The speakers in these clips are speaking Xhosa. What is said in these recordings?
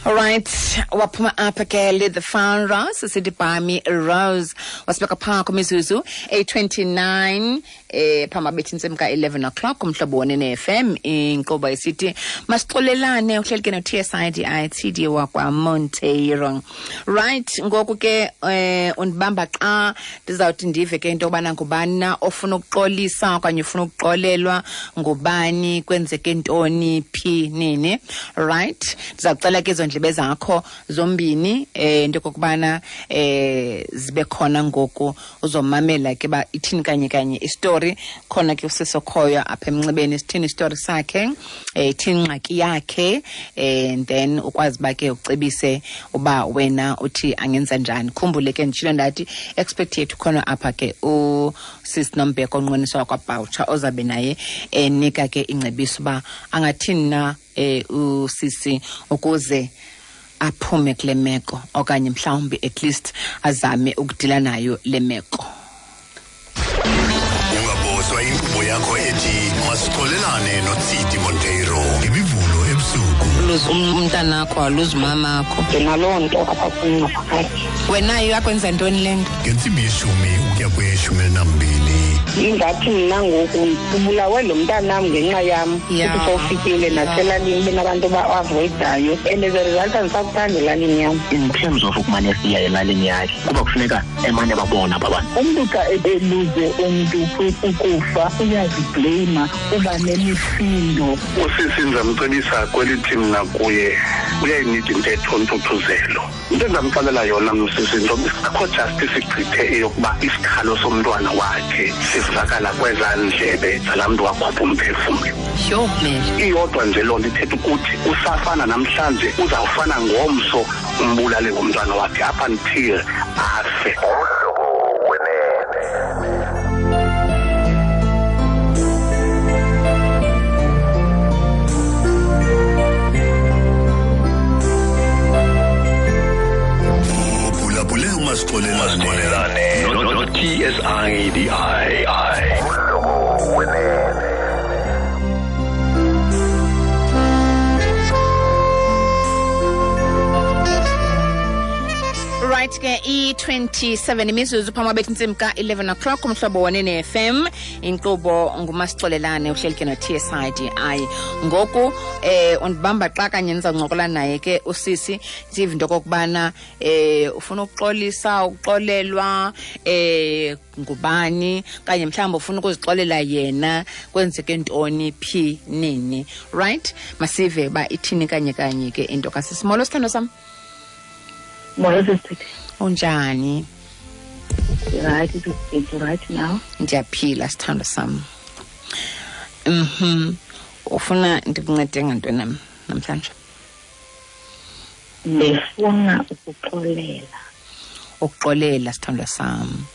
Alright, waphuma apha ke le the Pharaohs sithi Bami Rose wasibeka phaa kwimizuzu eyi-29 phambi abethi intsimbi ka-11 o'clock umhlobo wonene FM inkqubo isithi masixolelane uhleli ke no-TSIDI TD wakwaMonteiro. Right, ngoku ke undibamba xa ndizawuthi ndive ke into yobana ngubani na ofuna ukuxolisa okanye ufuna ukuxolelwa ngubani, kwenzeke ntoni, phi, nini. Right, ndizawucela ke ezo ndlebe zakho zombini into yokokubana zibe khona ngoku uzomamela ke ba ithini kanye kanye istory. Khona ke usisi okhoyo apha emnxebeni, sithini istory sakhe, ithini ingxaki yakhe, and then ukwazi uba ke ucebise uba wena uthi angenza njani. Khumbule ke nditshilo ndathi expert yethu khona apha ke usisi Nombheko onqweniswa wakwaBhawutsha ozabe naye enika ke ingcebiso uba angathini na usisi ukuze aphume kule meko, okanye mhlawumbi at least azame ukudila nayo le meko. Ungaboswa inkqubo yakho ethi masixolelane noTsidi Monteiro ngemivulo ebusuku. Luze umntanakho, aluze umamakho. Ndinaloo nto apha kum ngaphakathi. Wena iyakwenza ntoni le nto? Ngentsimbi yeshumi ukuya kweyeshumi elinambini. Ingathi mna ngoku ubulawe lo mntanam ngenxa yam. Futhi sowufikile naselalini benabantu ba-avoidayo. And as a result, andisakuthandi elalini yam. In terms of ukumane siya elalini yakhe, kuba kufuneka emane babona aba bantu. Umntu xa eluze umntu ukufa uyazibleyima, uba nemisindo. Usisi ndizamcebisa kwelithi mna kuye uyayinida intetho ntuthuzelo. Into endamxelela yona msisi, into akho justice igqithe eyokuba isikhalo somntwana wakhe sivakala kwezaa ndlebe zalaa mntu wakhupha umphefumlo. Yho, Mary. Iyodwa nje loo nto ithetha ukuthi usafana namhlanje, uzawufana ngomso umbulale ngomntwana wakhe up until afe. Uphulaphule umasixolelane no TSIDI. Right ke i-27 imizuzu phambi kwabethi intsimbi ka-11 o'clock umhlobo wanene FM inkqubo ngumasixolelane uhleli ke no-TSIDI. Ngoku undibamba xa kanye ndizawuncokola naye ke usisi, sive into okokubana ufuna ukuxolisa, ukuxolelwa ngubani, kanye mhlawumbi ufuna ukuzixolela yena, kwenzeke ntoni, phi, nini. Right, masive uba ithini kanye kanye ke into kasisi. Molo sithando sam. Molo sisithi. Unjani? Right, it's right now. Ndiyaphila sithando sam. Ufuna ndikuncede ngantoni nam namhlanje? Ndifuna ukuxolela. Ukuxolela sithando sam.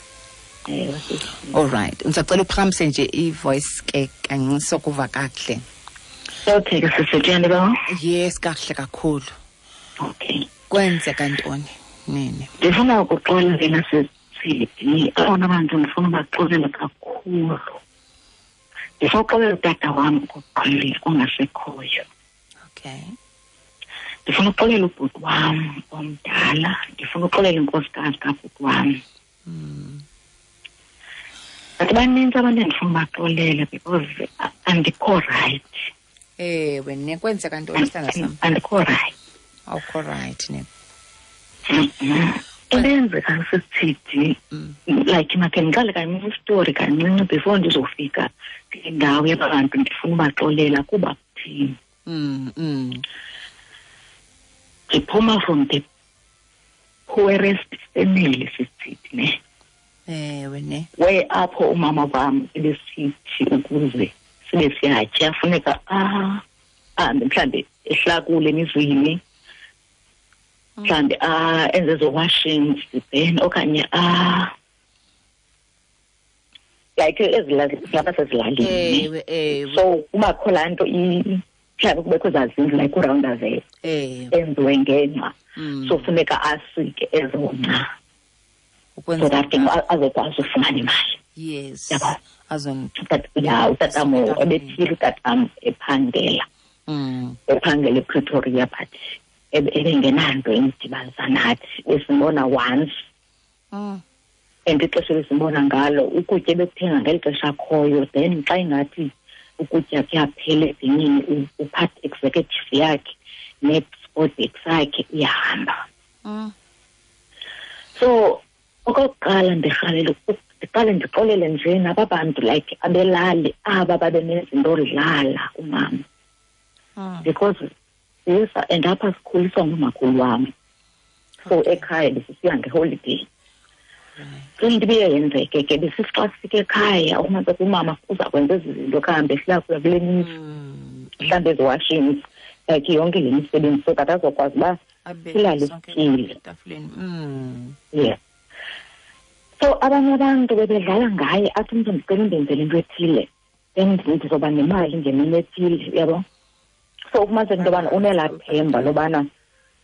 Ewe, sisi. All right. Ndisacela uphakamise nje i-voice ke kancinci sokuva kakuhle. Okay, ke sisi, uyandiva? Yes, kakuhle kakhulu. Okay. Kwenzeka ntoni nini? Ndifuna ukuxolela sisi. Abona bantu ndifuna ubaxolela kakhulu. Ndifuna ukuxolela utata wam okokuqala ongasekhoyo. Okay. Ndifuna ukuxolela ubhuti wam omdala, ndifuna ukuxolela inkosikazi kabhuti wam. But banintsi abantu endifuna ubaxolela because andikho right. Ewe, ne kwenzeka ntoni sithanda sam? Andikho right. Awukho right ne. Into eyenzeka sisithi, like makhe ndiqale kancinci isitori kancinci before ndizofika kule ndawo yabantu ndifuna ubaxolela kuba kuthini. Ndiphuma from the poorest family sisithi ne. Ewe ne. Where apho umama wam ebesithi ukuze sibe siyatya funeka ahambe mhlambe ehlakule emizini, mhlambe enze ezo washings then okanye like ezilapha sezilalini. Ewe, ewe. So kubakho laa nto mhlawumbi kubekho ezaa zindlu like uroundavel enziwe ngengca. So funeka asike ezo ngca. Ukwenza So that ke njani? azokwazi ufumana imali. Yes. Yabo. Azon- But yeah, utatam Azon- ebephila utatam ephangela. Ephangela ePretoria, but Ebengenanto imdibanisa nathi, besimbona once. And ixesha besimbona ngalo ukutya ebekuthenga ngeli xesha akhoyo, then xa ingathi ukutya kuyaphela ebhinini, uphatha executive yakhe ne-sport bag sakhe uyahamba. So okokuqala ndirhalela ndiqale ndixolele nje naba bantu like abelali aba babenezinto odlala umama. Because yes, and apha sikhuliswa ngumakhulu wam. So ekhaya besisiya ngeholiday. So into ibiye yenzeke ke besithi xa sifika ekhaya umazi umama uza kwenza ezi zinto kuhambe silakuya kule mizi, mhlawumbi ezi-washings, like yonke le misebenzi so that azokwazi uba silale sityile. Yeah. So abanye abantu bebedlala ngaye, athi umntu ndicela undenzele into ethile, then ndizoba nemali ngemini ethile, uyabo. So ufumaniseke into yobana unelaa themba lobana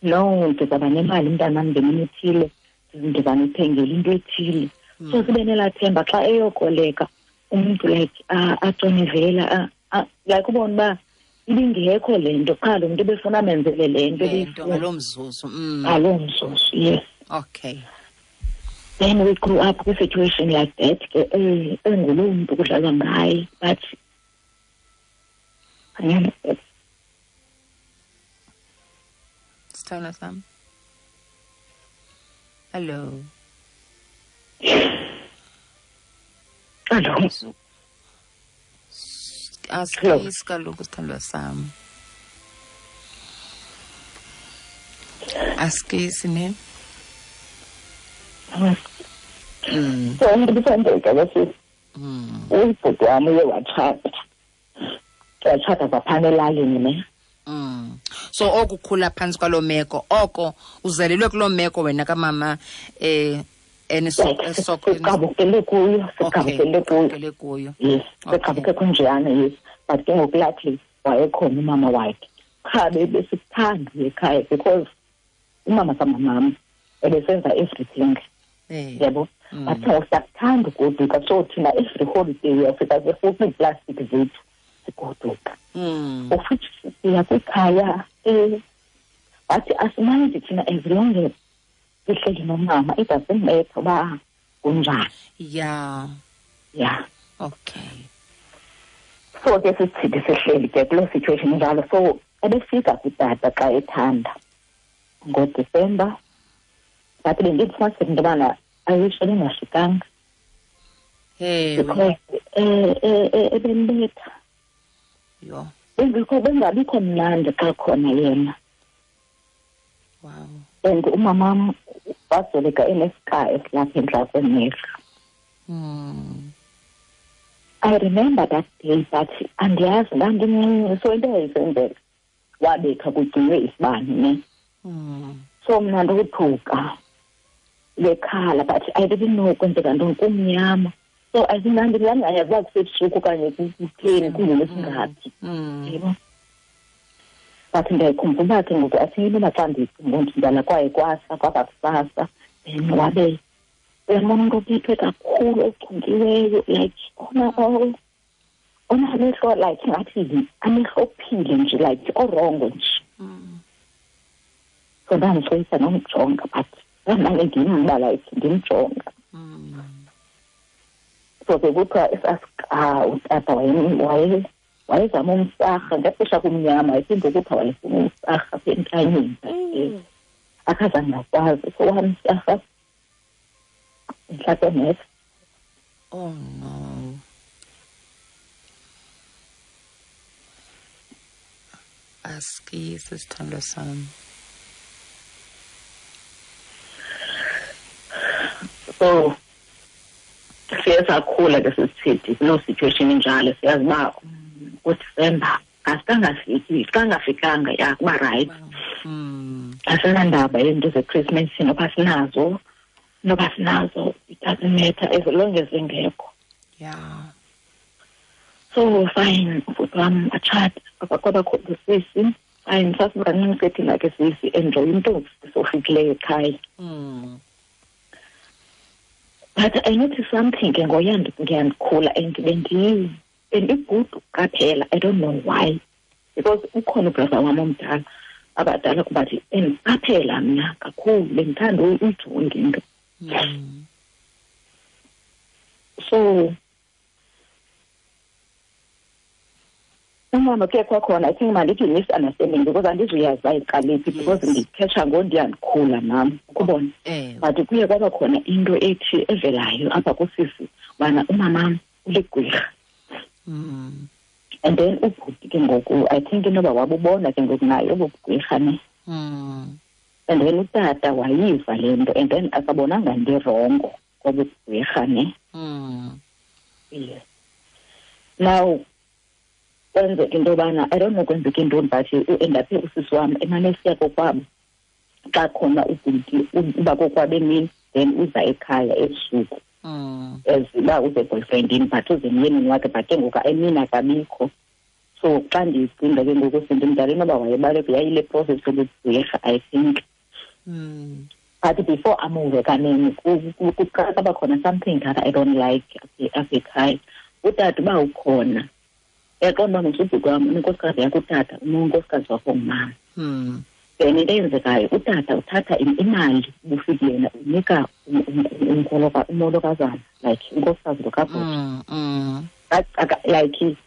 no, ndizawuba nemali mntanam ngemini ethile, ndizanithengela into ethile. So sibe nelaa themba xa eyokoleka umntu like aconevela, like ubone uba ibingekho le nto, qha lo mntu ebefuna amenzele le nto ngaloo mzuzu. Ngaloo mzuzu, yes. Okay. Then we grew up with a situation like that, enguloo mntu kudlalwa ngaye, but Sithanda sam. Hello. Hello. Asikisi kaloku sithandwa sam. Asikisi ne? So ndibisandeka bese ubhuti wam uye watshata. Watshata kwaphana elalini ne. So okukhula phantsi kwaloo meko, oko uzelelwe kuloo meko wena kamama siqabukele kuyo, siqabukele kuyo. Yes, siqabuke kunjeyana, yes. But ke ngoku luckily wayekhona umama wakhe. Qha besikuthanda ekhaya because umama kamamam ebesenza everything. Yabo. But siyakuthanda ugoduka, so thina every holiday uyafika sefuna iiplastic zethu sigoduka. Of which siya kwikhaya bathi asimanje thina as long as sihleli nomama, it doesn't matter uba kunjani. Yeah. Yeah. Okay. So ke sisithi sihleli ke kuloo situation njalo. So ebefika kutata xa ethanda ngoDisemba, but bendifumaniseka into yobana ayisho bengafikanga. Because ebembetha. Yho. Bengabikho mnandi xa khona yena. Wow. And umamam wasweleka enesika esilapha entla kwemehlo. I remember that day, but andiyazi ndandimncinci, so into eyayisenzeka wabetha kugcinwe isibane ne. So mna ndothuka bekhala, but I didn't know kwenzeka ntoni, kumnyama. So I think ndandingayazi uba kusebusuku okanye kutheni, kungolwesingaphi. Yebo. But ndiyayikhumbula ke ngoku, athi inoba xa ndicinga ndidlala kwaye kwasa kwaba kusasa, then wabe uyambona umntu ophethwe kakhulu ochunkiweyo, like onamehlo like ngathi amehlo ophile nje, like orongo nje. So ndandisoyisa nomjonga, but ndandimane ndimba like ndimjonga. So ke kuthiwa esasika utata wayezama umsarha ngexesha kumnyama, iphinde ukuthiwa wayefuna umsarha apha entanyeni, akazange akwazi, so wamsarha entla kwemehlo. Oh no. Asikisi sithandwa sam. So siye sakhula ke sisithi kuloo situation injalo, siyazi uba uDisemba asikangafiki, kangafikanga ya kuba right. Asinandaba yezinto zeChristmas noba sinazo, it doesn't matter as long as zingekho. Yeah. So fine, ubhuti wam atshata, kwabakho usisi. Fine, sasibancinci ke thina ke sisi enjoy into sofikileyo ekhaya. But I noticed something ke ngoya ndikhula and bendigudu qaphela, I don't know why. Because ukhona ubrother wam omdala Abadala kuba endiqaphela mna kakhulu, bendithanda uyijonga into. So umama ke kwakhona, I think mandithi misunderstanding, because andizuyazi uba iqale phi, because ndikhetha ngondiyandikhula nam ukubona. But kuye kwaba khona into ethi evelayo apha kusisi ubana umamam uligqirha. And then ubhuti ke ngoku, I think inoba wabubona ke ngoku naye obo bugqirha ne. And then utata wayiva le nto, and then akabonanga nto irongo kobu bugqirha ne. Yes. Now kwenzeka into yobana, I don't know kwenzeka intoni, but uendaphe usisi wam emane esiya kokwabo. Xa khona ubhuti uba kokwabo emini, then uza ekhaya ebusuku. As uba uze boyfriendini, but uze emyenini wakhe, but ke ngoku emini akabikho. So xa ndiyicinga ke ngoku sendimdala, inoba wayebaleka, yayile process yobugqirha, I think. But before amuve kanene, kuqala kwaba khona something that I don't like apha ekhaya. Utata uba ukhona, uyaqonda uba msubhuti wam unenkosikazi yakho utata, unonkosikazi wakho ngumama. Then into eyenzekayo, utata uthatha imali ubufiki yena unika umolokazana, like unkosikazi lo kabhuti. Like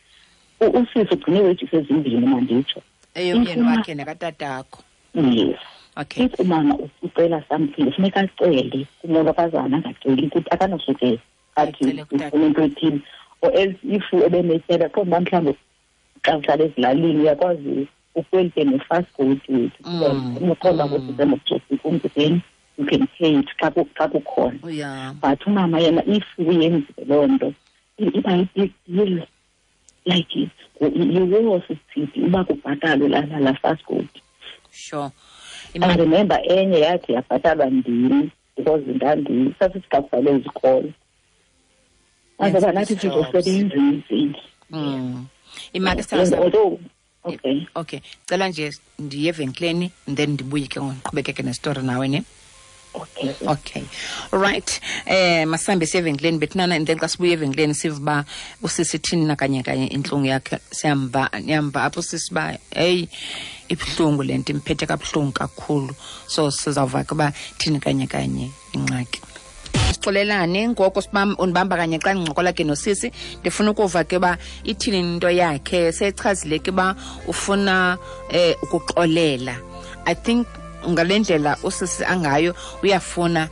usisi ugcine wages ezimbini, manditsho. Eyomyeni wakhe nakatatakho. Yes. Okay. If umama ucela something, kufuneka acele kumolokazana, angaceli ukuthi akanosuke athi Acele kutata. ufuna into ethile. Or else if ebenetyala, qonda uba mhlawumbi xa uhlala ezilalini uyakwazi ukwelite ne-fast food wethu. Uqonda ukuthi senokutsotsi umntu, then you can pay it xa kukhona. But umama yena if uyenzile loo nto, iba yi-big deal. Like yiwo sisithi uba kubhatalwe la fast food. I remember enye yathi yabhatalwa ndim because sasithi xa kuvalwe izikolo. Azoba nathi sizosebenza emzini. Imali sithatha. Although, okay. Okay. Cela nje ndiye evenkileni and then ndibuye ke ngoku ndiqhubekeke nestory nawe ne. Okay. Okay. Right. Masambe siye evenkileni bethunana, and then xa sibuye evenkileni sive uba usisi ithini na kanye kanye intlungu yakhe. Siyamva, niyamva apho usisi uba hey, ibuhlungu le nto, imphethe kabuhlungu kakhulu. So sizawuva ke uba thini kanye kanye ingxaki. Sixolelane ngoko undibamba kanye xa ndincokola ke nosisi, ndifuna ukuva ke uba ithini into yakhe. Sechazile ke uba ufuna ukuxolela. I think ngale ndlela usisi angayo uyafuna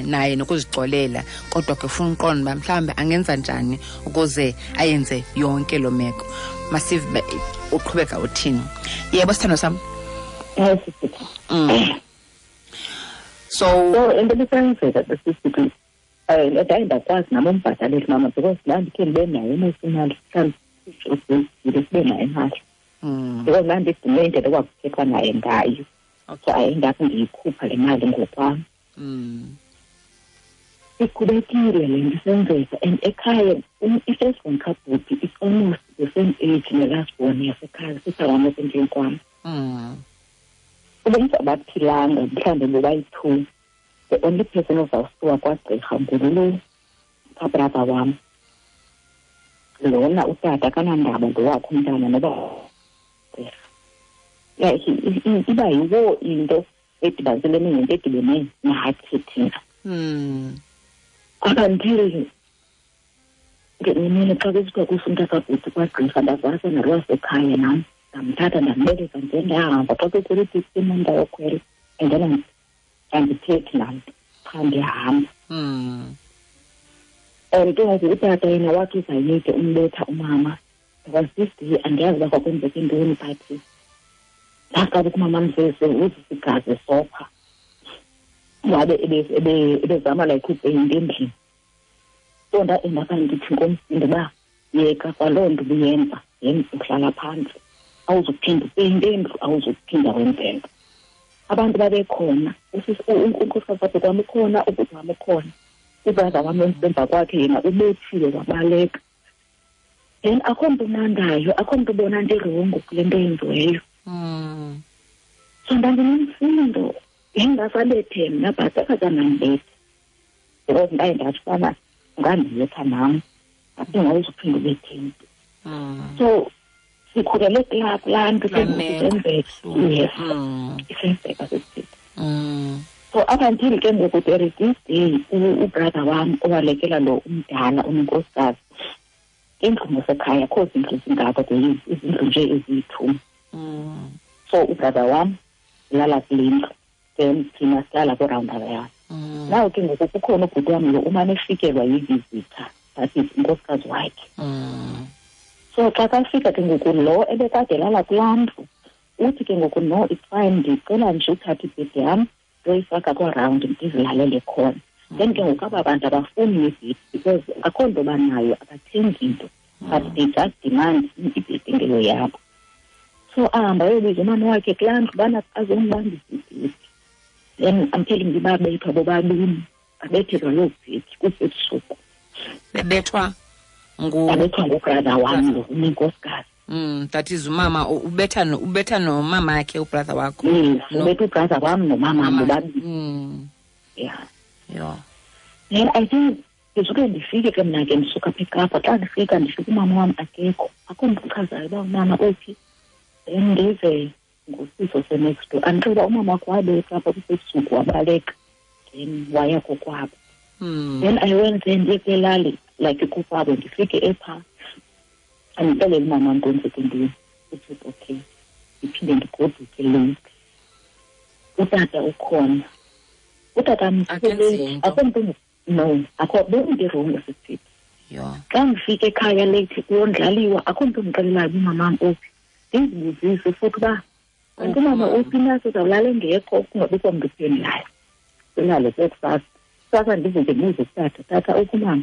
naye nokuzixolela, kodwa ke ufuna uqonda uba mhlawumbi angenza njani ukuze ayenze yonke loo meko. Masive uqhubeka uthini. Yebo, sithando sam. Yes, sisi. So, So into ebisenzeka sisi, ndaye ndakwazi nam umbhatalela mama, because ndandikhe ndibe nayo imali, mhlawumbi sibe nayo imali. Because ndandidume indlela ekwakuthethwa naye ngayo. So ayendapho ndiyikhupha le mali ngokwam. Iqhubekile le nto isenzeka, and ekhaya i-first born kabhuti is almost the same age ne-last born yasekhaya, sister wam osendlini kwam. Ubumntu abaphilanga mhlawumbi bobayi-two. The only person ozawusuka kwagqirha ngulo kabrother wam. Lona utata akanandaba ngowakhe umntana noba gqirha. Like, iba yiwo into edibaniselene nento edibene nathi thina. Up until ngenye imini xa kusithiwa kufuneka kabhuti kwagqirha, ndavasa nalwasekhaya nam, ndamthatha ndambeleka nje ndahamba. Xa kukhwela iteksi nam ndayokhwela, and then andithethi namntu, qha ndiyahamba. And ke ngoku utata yena wathi uzayeke umbetha umama. There was this day, andiyazi uba kwakwenzeka intoni, but ndaqala ukumama mzese uzisa igazi esopha. Wabe ebezama like upeyinta endlini. So ndaendapha ndithi ngomsindo uba yeka kwaloo nto ubuyenza, yenza uhlala phantsi, awuzuphinda upeyinte indlu, awuzuphinda wenze nto. Abantu babekhona, unkosikazi wakhe kwam ukhona, ubhuti wam ukhona, ubrother wam emva kwakhe yena ubethiwe wabaleka. Then akho mntu unandayo, akho mntu ubona nto irongo kule nto yenziweyo. So ndandinomsindo, yayingasabethe mna, but akazange because ndaye ndathi ubana ungandibetha nam, aphinde awuzuphinda ubethe mntu. So Sikhulele kulaa nto isenzeka. Yes, isenzeka sisithi. So up until ke ngoku there is this day ubrother wam owalekela lo umdala unenkosikazi indlu ngasekhaya, akho zindlu zingako, izindlu nje eziyi-2. So ubrother wam ulala kule ndlu, then thina sihlala kwiround yam. Now ke ngoku kukhona ubhuti wam lo umane efikelwa yi-visitor, that is unkosikazi wakhe. So xa kafika ke ngoku lo ebekade elala kulaa ndlu, uthi ke ngoku no, it's fine, ndicela nje uthathe ibhedi yam ndoyifaka kwarawundi ndizilalele khona. Then ke ngoku aba bantu abafuni ibhedi because akho nto banayo, abathengi nto, but they just demand ibhedi ngeyo yabo. So ahamba ayobiza umama wakhe kulaa ndlu ubana azombambisa ibhedi. Then I'm telling you, babethwa bobabini, babethelwa loo bhedi kusebusuku. Bebethwa ngubrother wam lo unenkosikazi. That is umama ubetha nomama wakhe ubrother wakho. Yes, ubetha ubrother wam nomama bobabini. Yeah. Yeah. Then I think ndisuke ndifike ke mna ke ndisuka apha eKapa. Xa ndifika ndifika umama wam akekho, akho mntu uchazayo uba umama uphi. Then ndive ngusiso se-next door andixela umama wakho wabetha apha kusebusuku wabaleka, then waya kokwabo. Then I went there ndiye kwelali like kokwabo, ndifike epha andixelele umama wam kwenzeke ntoni. Uthi okay, ndiphinde ndigoduke late. Utata ukhona, utata akho mntu, no, akho bendirongo sisithi. Xa ndifike ekhaya late kuyondlaliwa, akho mntu ndixelelayo uba umama wam uphi. Ndizibuzise futhi uba kanti umama uphi na, sizawulala engekho, kungabikho mntu uphendulayo. Silale ke kusasa. Kusasa ndivuke ndibuze kutata, tata uphi umama?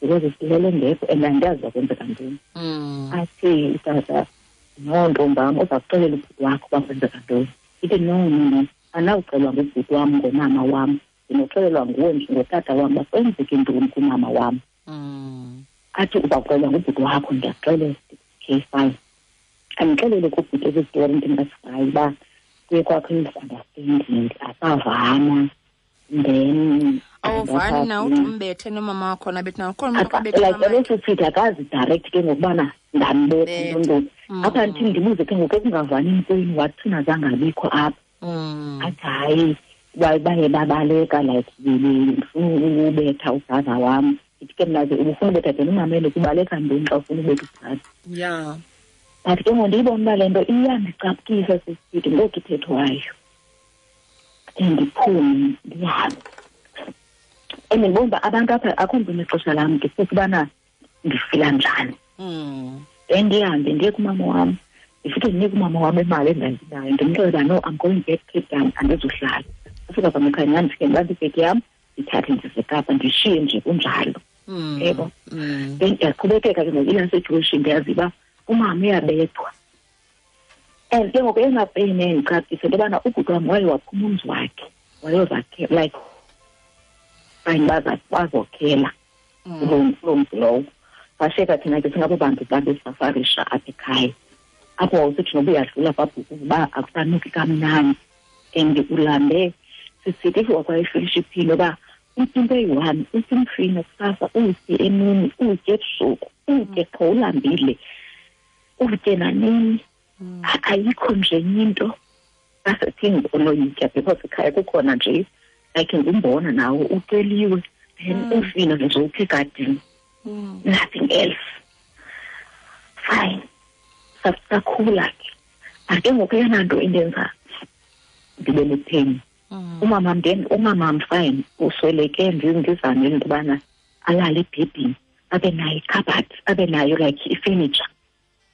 Because silele engekho and andiyazi uba kwenzeka ntoni. Athi utata, no ntombam, uza kuxelela ubhuti wakho uba kwenzeka ntoni. Ithi no, no, no, andinawuxelwa ngubhuti wam ngomama wam, ndinoxelelwa nguwe nje ngotata wam uba kwenzeke ntoni kumama wam. Athi uza kuxelelwa ngubhuti wakho, ndiyakuxelela. Okay, fine. Andixelele kubhuti esi story ndingasivayo uba kuye kwakho i-misunderstanding, asavana. Then awuvani na uthi umbethe nomama wakho nabethi na ukhona umntu okabethe like ebesisithi akazi direct ke ngokubana ndambetha ntontoni. Apha ndithi ndibuze ke ngoku ekungavanini kwenu, wathina zange abikho apha. Athi hayi, baye babaleka like ndifuna ubetha ubrother wam. Ndithi ke mna ke ubufuna ubetha then umamele kubaleka ntoni xa ufuna ubetha ubrother. Yeah. But ke ngoku ndiyibona uba le nto iyandicaphukisa sisithi ngoku ithethwayo. Ndiphume ndihambe. And ndibona uba abantu apha akho mntu unexesha lam, ndifuna ubana ndifila njani. Then ndihambe ndiye kumama wam, ndifike ndinike umama wam imali endandinayo, ndimxelele uba no, I'm going back Cape Town, andizuhlala. Ufika kwam ekhaya nyhani ndifike ndibambe ibhegi yam, ndithathe ndize Kapa, ndishiye nje kunjalo. Yebo. Then ndiyaqhubekeka ke ngoku ilaa situation, ndiyazi uba umama uyabethwa. And ke ngoku eyona pain endicaphukisa into yobana ubhuti wam waye waphuma umzi wakhe, wayozakhela like fine, bazokhela kuloo mzi lowo. Sashiyeka thina ke singabo bantu babesafarisha apha ekhaya. Apho wawusithi noba uyadlula kwabhuku uba akusanuki kamnandi and ulambe. Sisithi if wakwayifilisha iphilo uba utye into eyi-one, utye umfino kusasa, utye emini, utye ebusuku, utye qho ulambile, utye nanini. Ayikho nje enye into asethi onoyitya because ekhaya kukhona nje like ngumbona nawo uceliwe, then umfino nje ukhe egadini, nothing else. Fine, sakhula ke. But ke ngoku eyona nto indenza ndibe nepheni, umama then umama fine usweleke, ndizamele into yobana alale ebhedini, abe nayo ikhabhathi, abe nayo like ifurniture,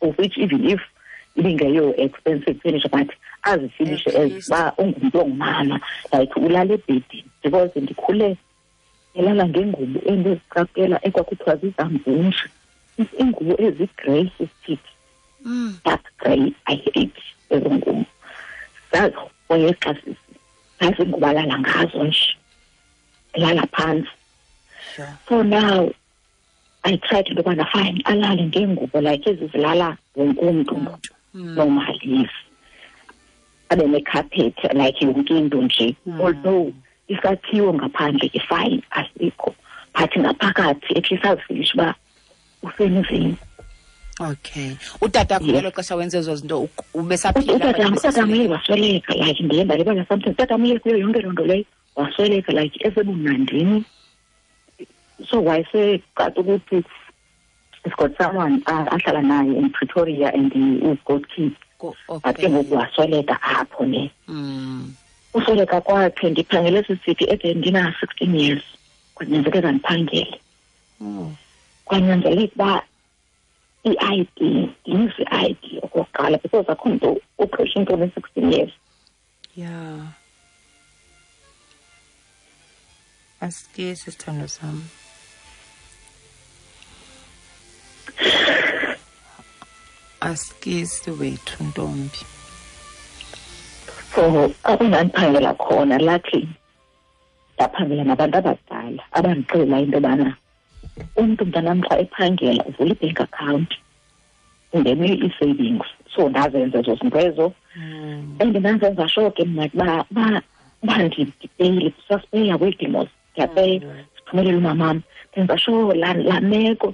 of which even if ibingeyo expensive furniture, but azifinishe as uba ungumntu ongumama, like ulala ebhedini. Because ndikhule elala ngengubo endiziqaphela ekwakuthiwa zizamvunje, iingubo ezigrey sisithi, dark grey, I hate ezo ngubo. Zazihoye xa sisi, zazingubo alala ngazo nje, elala phantsi. So now I tried into yobana fine alale ngengubo like ezi zilala wonke umntu normally, yes. Abe necarpet like yonke into nje. Although isakhiwo ngaphandle ke fine asikho, but ngaphakathi at least azifilishe uba usemzini. Okay. Utata ngelo xesha wenze ezo zinto ubesaphila? Utata uye wasweleka, like ndiye ndalibala something. Utata uye kuyo yonke loo nto leyo wasweleka, like esebumnandini. So wayesecaca ukuthi he's got someone ahlala naye in Pretoria and he's got kids. But ke ngoku wasweleka apho ne. Usweleka kwakhe ndiphangele sisithi ede ndina-16 years. Kwanyanzeleka ndiphangele. Kwanyanzeleka uba i-ID, ndinise i-ID okokuqala because akho mntu uqesha umntu one-16 years. Yeah. Asikisi sithando sam. Asikisi wethu ntombi. So apho ndandiphangela khona, luckily ndaphangela nabantu abadala abandixelela into yobana umntu mntanam xa ephangela uvula i-bank account, ungene i-savings. So ndazenza ezo zinto ezo. And ndanzenza sure ke mna uba ndipeyile, sasipeya kweedimos, ndiyapeya, siphumelele umamam. Ndenza sure laa meko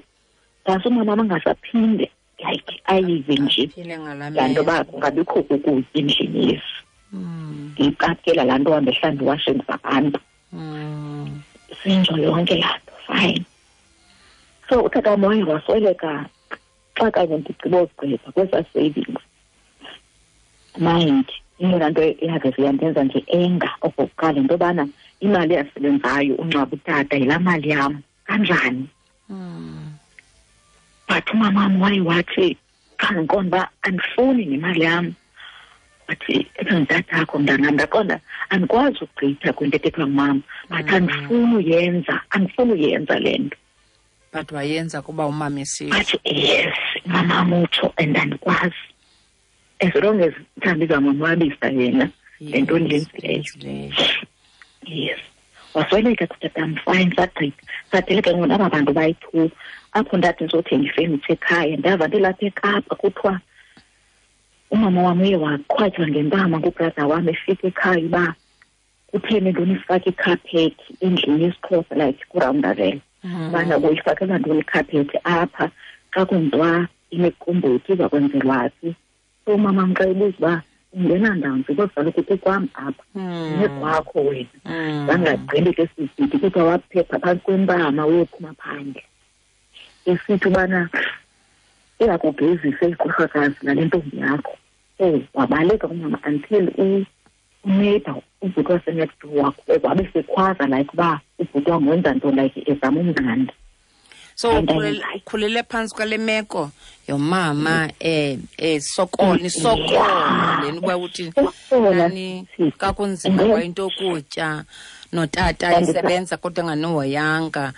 ngase umamam angasaphinde like ayive nje laa nto uba kungabikho kukutya endlini yesi. Ndiyiqaphela laa nto hambe hlamba iwashing zabantu. Sinjo yonke laa nto, fine. So utata wam waye wasweleka xa kanye ndigqiba ugqiba kwezaa savings. Mind, eyona nto eyaveze yandenza nje enga okokuqala into yobana imali eyasebenzayo ungcwaba utata yilaa mali yam kanjani. But umamam waye wathi xa ndiqonda uba andifuni nemali yam, wathi ebengutatakho mntanam. Ndaqonda andikwazi ugqitha kwinto ethethwa ngumama, but andifuni uyenza le nto. But wayenza kuba umama esitsho. But yes, umamam utsho and andikwazi. As long as mhlawumbi izawumonwabisa yena le nto ndiyenzileyo. Yes. Wasweleka kutatam, fine, sagqitha. Sadeleka ngoku naba bantu bayi-2. Apho ndathi ndizothenga ifenitsha ekhaya, ndava ndilapha eKapa kuthiwa umama wam uye waqhwatywa ngempama ngubrother wam efika ekhaya uba kutheni ntoni ifake ikhaphethi endlini yesiXhosa, like kuRoundavel. Ubana kuyifakela ntoni ikhaphethi apha xa kwenziwa imiqombothi iza kwenzelwa phi. So umama xa ebuza uba ungena ndawoni because kaloku kukwam apha, nekwakho wena. Bangagqibi ke sisithi kuthiwa waphepha phantsi kwempama uyophuma phandle. Esithi ubana iyakugezisa igqirhakazi nale ntombi yakho. So wabaleka umama until uneighbor ubhuti wasenext door wabe sekhwaza like uba ubhuti wam wenza nto like ezama umnandi. So ukhulele phantsi kwale meko yomama sokola nisokola lena uba uthi nani kakunzima kwayinto yokutya notata esebenza kodwa enganohoyanga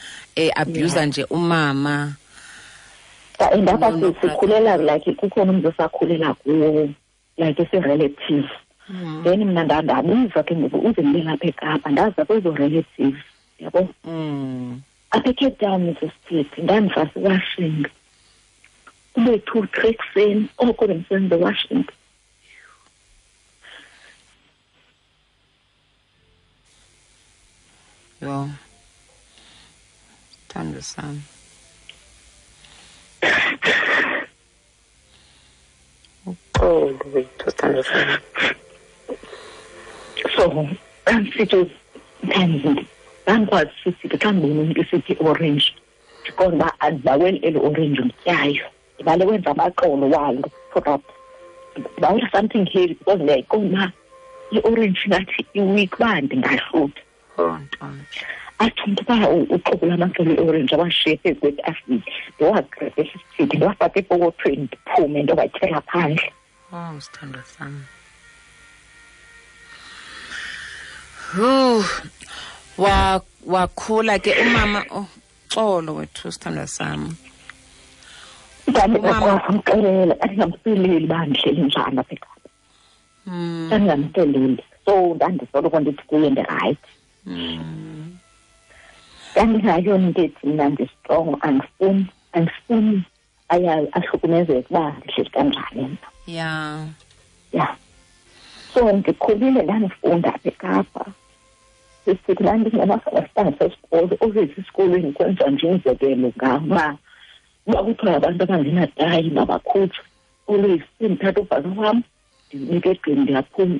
abuser nje umama. And apha sikhulela like kukhona umntu osakhulela kuwo like esi-relative. Then mna ndabuza ke ngoku uze ndibe lapha eKapa, ndaza kwezo relatives, yabo. Apha eCape Town Mrs Titi ndandifasa iwashing. Kube 2-3 ekuseni oko bendisenza iwashing. Yho, sithando sam. Uxolo wethu, sithando sam. So andisithi sometimes ndandikwazi sithi xa ndibona umntu esithi orange ndiqonda uba andibaweli eli orange ndityayo, ndibale wenza amaxolo walo product, ndibawela something heavy because ndiyayiqonda uba i-orange ngathi iweak uba ndingahlutha. Athi umntu uba uxobula amaxolo e-orange awashiye phezu kwetafile, ndiwagqebhe sisithi ndiwafake epokothweni ndiphume ndiyowatyela phandle. Oh, sithandwa sam. Wakhula ke umama. Uxolo wethu sithandwa sam. Ndandingamxelela, andingamxeleli uba ndihleli njani apha eKapa. Ndandingamxeleli. So ndandisoloko ndithi kuye ndirayithi. Ndandingayona into ethi mna ndistrongo, andifuni ahlukumezeke uba ndihleli kanjani mna. Yeah. Yeah. So ndikhulile ndandifunda apha eKapa. Sisithi ndandingenasabasitanga sesikolo, always esikolweni kwenziwa nje umzekelo ngam uba Uba kuthiwa abantu abangenatayi mabakhutshwe, always sendithatha ubhaka wam ndinike egqini ndiyaphuma.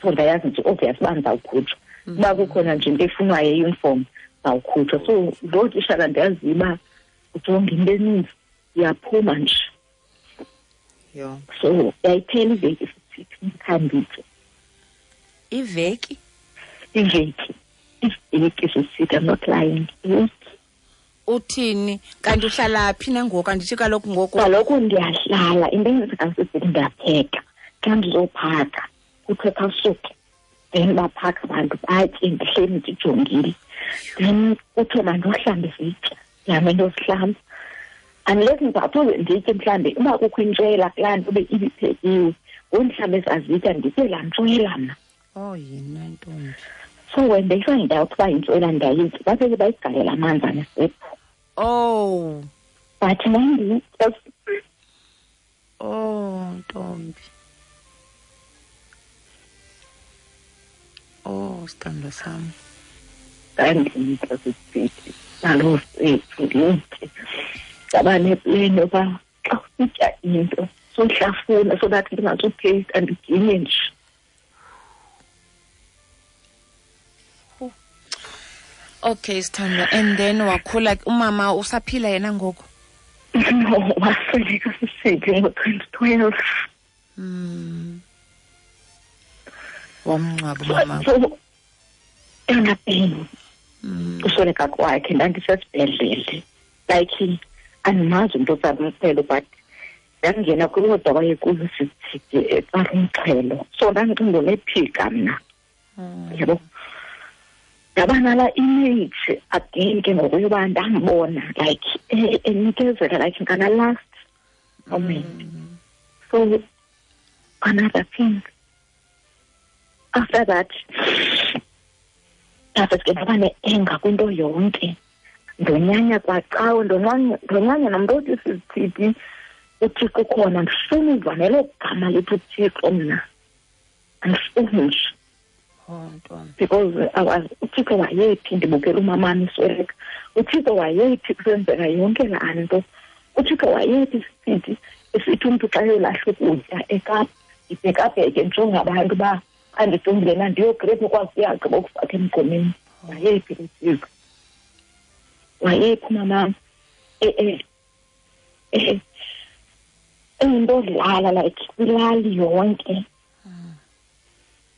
So ndayazi nje obvious uba ndizawukhutshwa. Uba kukhona nje into efunwayo eyuniform ndizawukhutshwa. So loo tishala ndiyaziyo uba ujonga into eninzi, iyaphuma nje. So yayiphela iveki sithi ndikhanditye. Iveki? Iveki. Iveki sisithi, I'm not lying. Iveki. Uthini? Kanti uhlala phi nangoku? Andithi kaloku ngoku. Kaloku ndiyahlala. Into eyenzeka sisithi ndiyapheka. Xa ndizophaka, kuthiwe khawusuke. Then baphaka abantu batye, ndihleli ndijongile. Then kuthiwe mandohlambe izitya. Ndihambe ndiyozihlamba. Unless ndizawuthi nditye mhlawumbi uba kukho intshwela kulaa nto ube ibiphekiwe, ngoku mhlawumbi ezazitya nditye laa ntshwela mna. Oh, yina ntombi. So when they find out uba yintshwela ndiyayitya, bapheke bayigalela amanzi anesephu. Oh. But ndandiyitya. Oh, ntombi. Oh, sithandwa sam. Ndandiyitya sisithi, naloo sethu ndiyitye. Ndaba nepleni yoba xa usitya into sohlafuna so that ndingazupheyista ndiginye nje. Okay, sithandwa. And then wakhula, umama usaphila yena ngoku? No, wasweleka sisithi ngo-2012. Wamngcwaba umama. So, eyona pain usweleka kwakhe ndandisesibhedlele. Like andimazi umntu otsamxhelo, but ndangena kwiwodwa wayekuyo sisithi etsala umxhelo. So ndandicinga unephika mna. Yabo. Ndaba nala image again ke ngoku yoba ndambona like enikezela like ngala last moment. So another thing after that, after ke ndaba ne-anger kwinto yonke. Ndonyanya kwacawe, ndonyanya nomntu othi sisithi uThixo ukhona, ndifuna uva nelo gama lithi uThixo mna. Andifuni nje. Because I was uThixo wayephi ndibukela umamam isweleka. uThixo wayephi kusenzeka yonke laa nto. uThixo wayephi sithi esithi umntu xa eyolahla ukutya eKapa, ndibhekabheke ndijonge abantu uba andijongile na ndiyogrepha ukwazi uyagqiba ukufaka emgqomeni. Wayephi uThixo? Wayephi umamam? Eyinto odlala like kwilali yonke.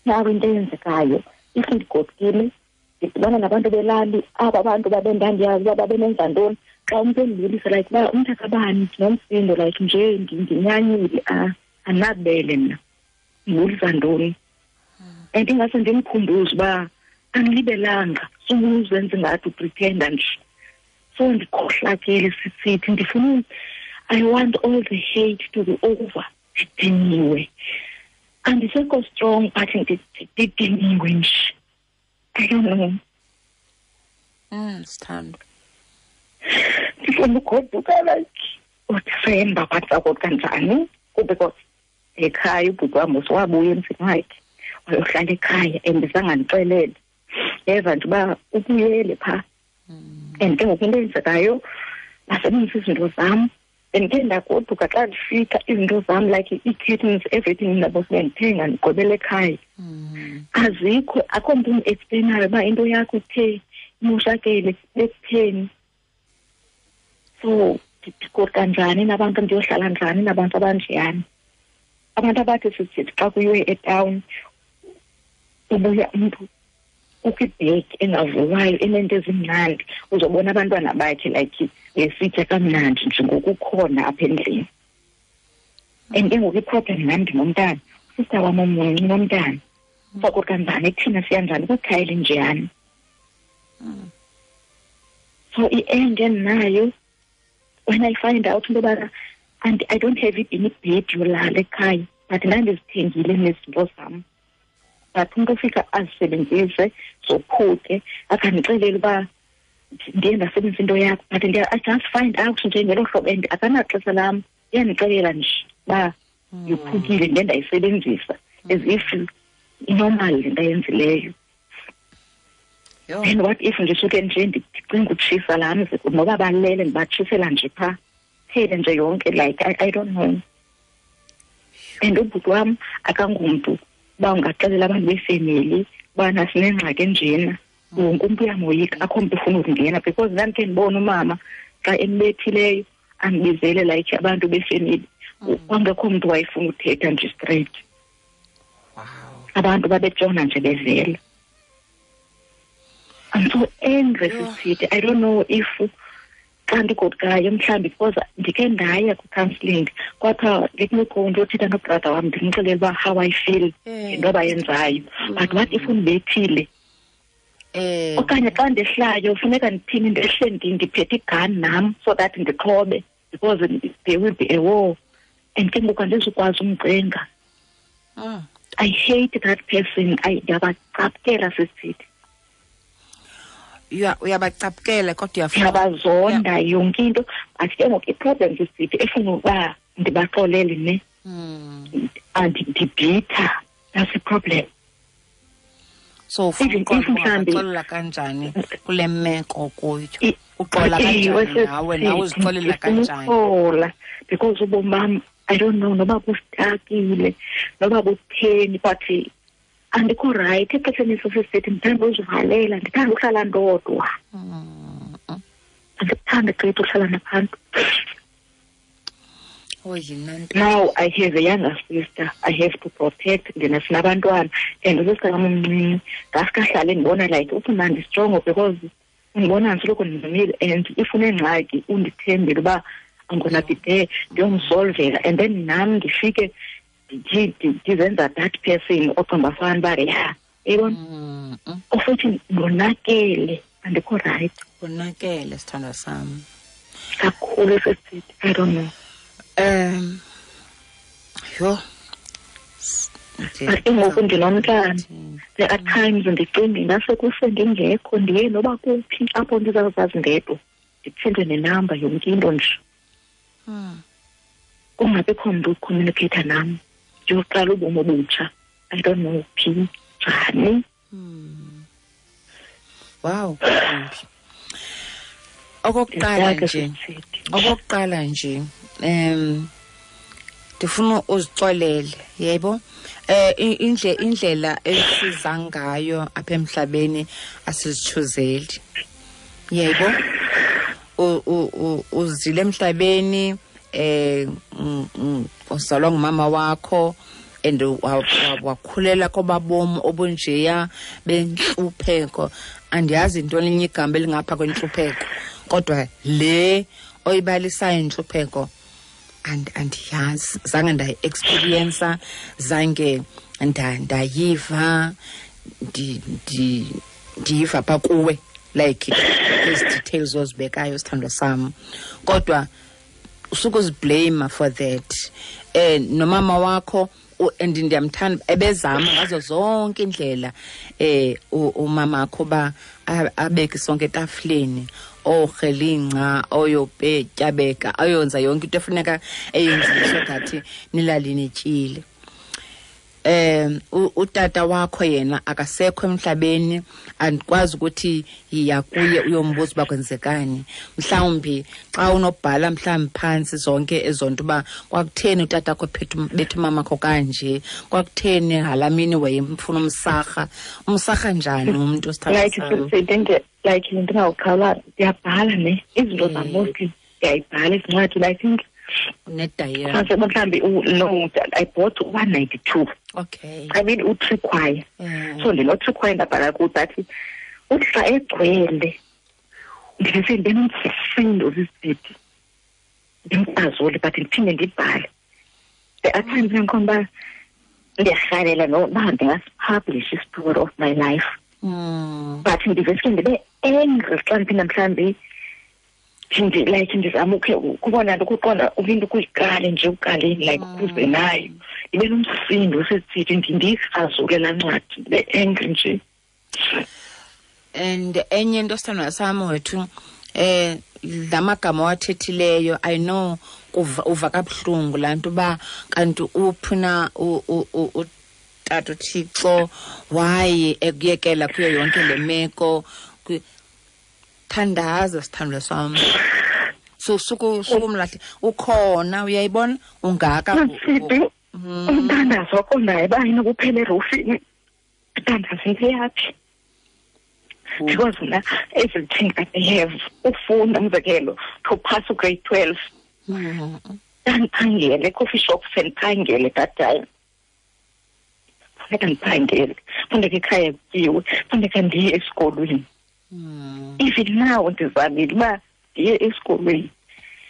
Nawe into eyenzekayo, if ndigodukile ndidibana nabantu belali, aba bantu babendandiyazi uba babenenza ntoni. Xa umntu endibulisa like uba umntu akabani ndinomsindo like nje ndinyanyile, andinabele mna, ndibulisa ntoni. And ingase ndimkhumbuze uba andilibelanga, sukuzenza ingathi upretenda nje. So ndikhohlakele sisithi ndifuna, I want all the hate to be over. Ndidiniwe. Andisekho strong, but ndidiniwe nje. I don't know. Sithandwa. Ndifuna ugoduka like uDisemba, but sagoduka njani? Because ekhaya ubhuti wam wabuya emzini wakhe wayohlala ekhaya and zangandixelele. Yeva nje uba ubuyele phaa. And ke ngoku into eyenzekayo, basebenzisa izinto zam. And ke ndagoduka xa ndifika izinto zam like ii-curtains, everything ndabo sendithenga ndigqibele ekhaya. Azikho, akho mntu undiexplayinayo uba into yakho ithe imoshakele bekutheni. So ndigoduka njani nabantu, ndiyohlala njani nabantu abanjeyana? Abantu abathi sisithi xa kuyiwe etawuni ubuya umntu kukho ibhegi engavuwayo enento ezimnandi, uzobona abantwana bakhe like besitya kamnandi nje ngokukhona apha endlini. And ke ngoku iproblem nam ndinomntana, usista wam omncinci unomntana. Sagoduka njani kuthina, siya njani kwikhaya elinjeyana? So i-end endinayo when I find out into yobana and I don't have even ibhedi yolala ekhaya, but ndandizithengile nezinto zam. But umntu ofika azisebenzise zophuke akandixelele uba ndiye ndasebenzisa into yakho, but I just find out nje ngelo hlobo and akanaxesha lam, iyandixelela nje uba yophukile ndiye ndayisebenzisa as if inormal le nto ayenzileyo. And what if ndisuke nje ndicinga utshisa laa mzi, noba balele ndibatshisela nje phaa, phele nje yonke, like I don't know. And ubhuti wam akangumntu uba ungaxelela abantu befemeli ubana sinengxaki enjena, wonke umntu uyamoyika, akho mntu ufuna ukungena, because ndandikhe ndibone umama xa embethileyo andibizele like abantu befemeli, kwangekho mntu wayefuna uthetha nje straight. Wow. Abantu babetshona nje bevela. I'm so angry, Sisi. I don't know if xa ndigodukayo mhlawumbi, because ndikhe ndaya kwi-counselling, kwathiwa let me go ndiyothetha nobrother wam ndimxelele uba how I feel ngento abayenzayo. But what if undibethile? Okanye xa ndehlayo funeka ndithini, ndehle ndiphethe igun nam so that ndixhobe, because there will be a war. And ke ngoku andizukwazi umcenga. I hate that person. Ndiyabacapukela, Sisi. Uyabacapukela kodwa uyafuna. Ndiyabazonda yonke into. But ke ngoku i-problem sisithi efuna uba ndibaxolele ne. Andibhitha. That's the problem. So ufuna uxolela kanjani kule meko kuyo? Uxola kanjani nawe, nawe uzixolela kanjani? Uxola because ubomi bam, I don't know noba bustakile noba butheni, but andikho right exesheni sesithi ndithanda uzivalela, ndithanda uhlala ndodwa. Andikuthandi gqithi uhlala nabantu. Now I have a younger sister I have to protect, ndina sinabantwana, and usister wam omncinci ngaske ahlale ndibona like ufuna ndistrong, because undibona ndisoloko ndimile, and if unengxaki undithembile uba I'm gonna be there ndiyomsolvela, and then nam ndifike ndizenza that person oqomba fana uba ya yayibona, ofuthi ndonakele, andikho right. Wonakele sithandwa sam kakhulu sisithi, I don't know. Yho. But ke ngoku ndinomntana, there are times ndicinga ingase kuse ndingekho, ndiye noba kuphi apho ndizawuzazi ndedwa, ndiphinde nenamba yonke into nje. Kungabikho mntu ucommunicate nam, ndiyoqala ubomi obutsha. I don't know phi njani. Wow. Okokuqala nje ndifuna uzixolele, yebo. Indlela esiza ngayo apha emhlabeni asizithuzeli. Yebo. Uzile emhlabeni, uzalwa ngumama wakho, and wakhulela kobabomi obunjeya bentlupheko. Andiyazi into elinye igama elingapha kwentlupheko, kodwa le oyibalisayo intlupheko andiyazi, zange ndayi-experiensa, zange ndayiva, ndiyiva pha kuwe, like ezi details ozibekayo sithandwa sam. Kodwa usukuziblame for that. Nomama wakho, and ndiyamthanda, ebezama ngazo zonke indlela umama wakho ba abeke sonke etafuleni, ohelinca, oyopetyabeka, ayonza yonke into efuneka eyenzile so that nilali nityile. Utata wakho yena akasekho emhlabeni, andikwazi ukuthi yiya kuye uyombuza uba kwenzekani. Mhlawumbi xa unobhala mhlawumbi phantsi zonke ezonto uba kwakutheni utata wakho bethu umama wakho kanje, kwakutheni halamini wayemfuna umsarha, umsarha njani umntu like like ndingawuqhawula, ndiyabhala ne izinto zam mostly ndiyayibhala izincwadi. I think nedayari mhlawumbi no, I bought 192. Okay. I mean u-three choir. So ndino-three choir ndabhala kuyo, but uthi xa egcwele ndivese ndinomsindo sisithi ndimqazule, but ndiphinde ndibhale. There are times endiqonda uba ndiyarhalela noba ndingasipublish i-story of my life. But ndiveske ndibe angry xa ndiphinda mhlawumbi like ndizama ukhe kubona nto ukuqonda into ukuyiqale nje uqaleni like ukuze nayo ndibe nomsindo sesithi ndiyikrazule laa ncwadi, ndibe angry nje. And enye into sithandwa sam wethu, lamagama wathethileyo, I know uva kabuhlungu laa nto uba kanti uphuna Utata uThixo why ekuyekela kuyo yonke le meko. Thandaza sithandwa sami. So sukumlahle ukhona, uyayibona ungaka umthandazo wakho naye bayini kuphela erufini, uthandaza into yakhe because mna everything I have ufunda, umzekelo to pass grade 12 ndandiphangele coffee shop, sendiphangele that time, funeka ndiphangele, funeka ekhaya kutyiwe, funeka ndiye esikolweni. Even now ndizamile uba ndiye esikolweni,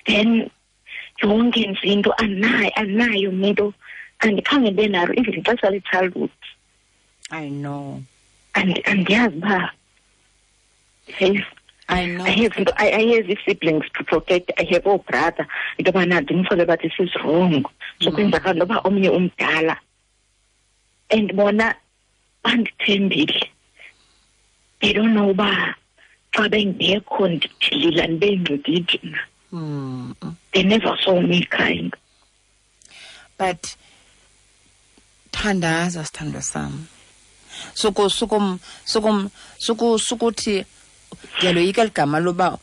then yonke nje into anayo into andikhange ndibe nalo even ixesha le-childhood. I know. Andiyazi uba I know. I have siblings to protect. I have a brother. Into yobana ndimxelele uba this is wrong. So kwenzakala noba omnye umdala. And bona bandithembile. They don't know uba xa bengekho ndilila ndibe mna. They never saw me crying. But thandaza sithandwa sami. Sukuthi ndiyaloyika ligama loba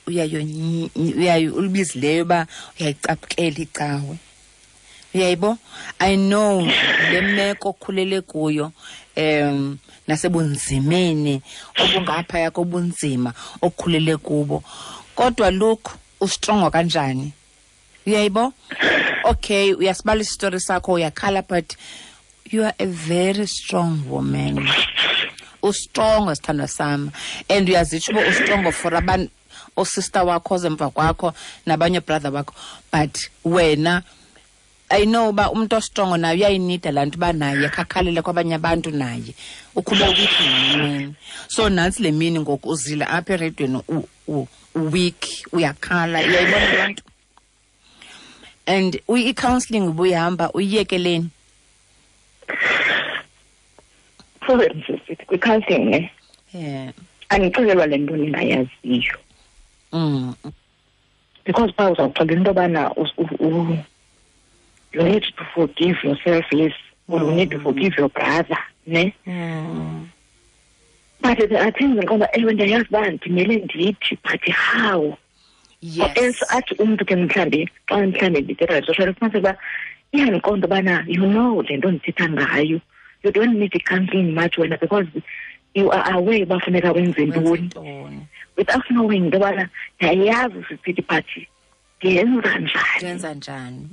uyayo ulibizileyo uba uyayicaphukela icawe. Uyayibo? I know le meko okhulele kuyo, nasebunzimeni obungaphaya kobunzima okhulele kubo. Kodwa look, ustrongo kanjani? Uyayibo? Okay, uyasibala isitori sakho, uyakhala, but you are a very strong woman. Ustrongo sithandwa sami, and uyazitsho uba ustrongo for abantu, osister wakho ozemva kwakho nabanye brother wakho, but wena I know uba umuntu ostrongo naye uyayinida laa nto uba naye khakhalele kwabanye abantu, naye ukhube weak ngemini. So nantsi le mini ngoku uzile apha eredweni weak, uyakhala, uyayibona loo nto. And i-counselling ubuyihamba uyiyekeleni? Sorry, sisithi kwi-counselling ne, andixelelwa le nto ndingayaziyo. Because phaa uzawuxelela into yobana you need to forgive yourself, yes, or you need to forgive your brother, ne? But there are things ndiqonda, ewe, ndiyayazi uba ndimele ndithi, but how? Or else athi umntu ke mhlawumbi xa mhlawumbi ndithetha social, ufumaniseke uba iyandiqonda ubana you know le nto ndithetha ngayo, you don't need i-counselling much wena because you are aware uba funeka wenze ntoni, ntoni, without knowing into yobana ndiyayazi sisithi, but ndiyenza njani? Ndenza njani,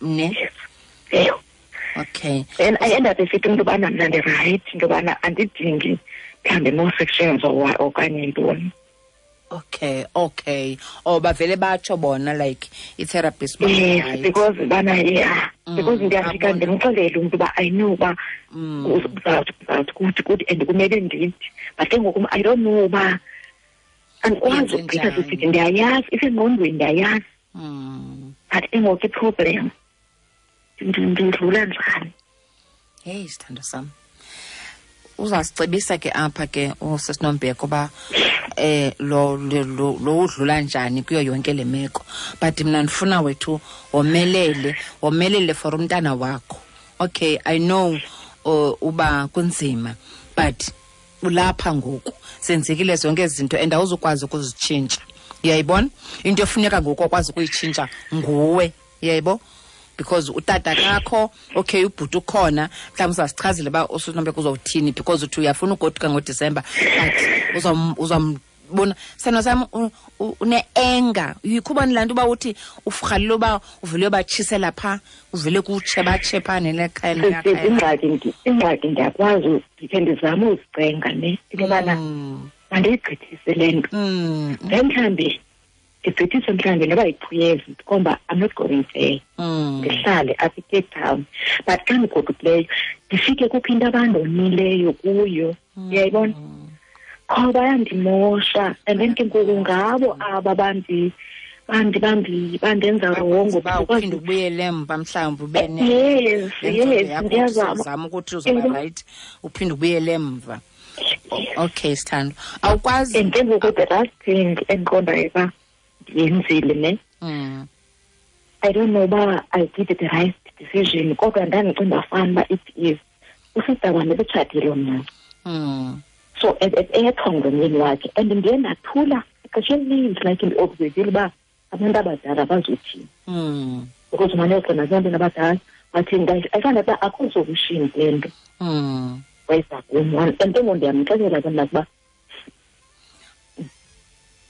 ne? Yes, eyo. Then I end up esithi umntu ubana mna ndirayithi, into yobana andidingi mhlawumbi more sections or okanye ntoni. Okay, oh, bavele batsho bona, like i-therapist uba Yes, right. Because bana, yeah, because ndiyafika abona. Ndimxelele umntu uba I know uba uzawuthi uzawuthi kuthi kuthi and kumele ndithi, but ke ngoku I don't know uba andikwazi Yenze ukugqitha njani? sisithi ndiyayazi isengqondweni, ndiyayazi, but ke ngoku iproblem ndidlula njani? Heyi, sithando sam, uzasicebisa ke apha ke usisinombeko uba lo lo lo lo udlula njani kuyo yonke le meko, but mna ndifuna wethu womelele, womelele for umntana wakho. Okay, I know uba kunzima, but ulapha ngoku, senzekile zonke ezi zinto and awuzukwazi ukuzitshintsha, uyayibona? Into efuneka ngoku okwazi ukuyitshintsha nguwe, uyayibo? Because utata kakho, okay, ubhuti ukhona, mhlawumbi uzasichazela uba usinombeko uzowuthini, because uthi uyafuna ugoduka ngoDisemba, but uzambona sithando sam une-anger. Yikhubani laa nto uba uthi urhalela uba uvele uyobatshisela phaa, uvele kutshe batshe phaa nelekhaya? Sisi, ingxaki ndiyakwazi ndikhe ndizame uzicenga ne into yobana mandiyigqithise le nto, then mhlawumbi ndigqithise mhlawumbi noba yi-2 years, ndikhomba I'm not going there, ndihlale apha eCape Town, but xa ndigodukileyo ndifike kukho into abandonileyo kuyo, uyayibona, qho bayandimosha, and then ke ngoku ngabo aba bandi bandi bandi bandenza wrongo. Uba uphinde ubuyele emva mhlawumbi ube Yes, ndiyazama. Uzama ukuthi uzoba right, uphinde ubuyele emva. Okay sithando, awukwazi. And ke ngoku the last thing endiqondayo uba ndiyenzile ne, I don't know uba I did the right decision, kodwa ndandicinga fana uba it is Usista wam ebetshatile omncinci. So eyethwa ngomyeni wakhe, and ndiye ndathula ixesha elininzi, like ndiobservile uba abantu abadala bazothini. Because umane uxela nabantwana abadala bathi ayifana uba akho solution kule nto. Wayeza kum, and ke ngoku ndiyamxelela ke mna ukuba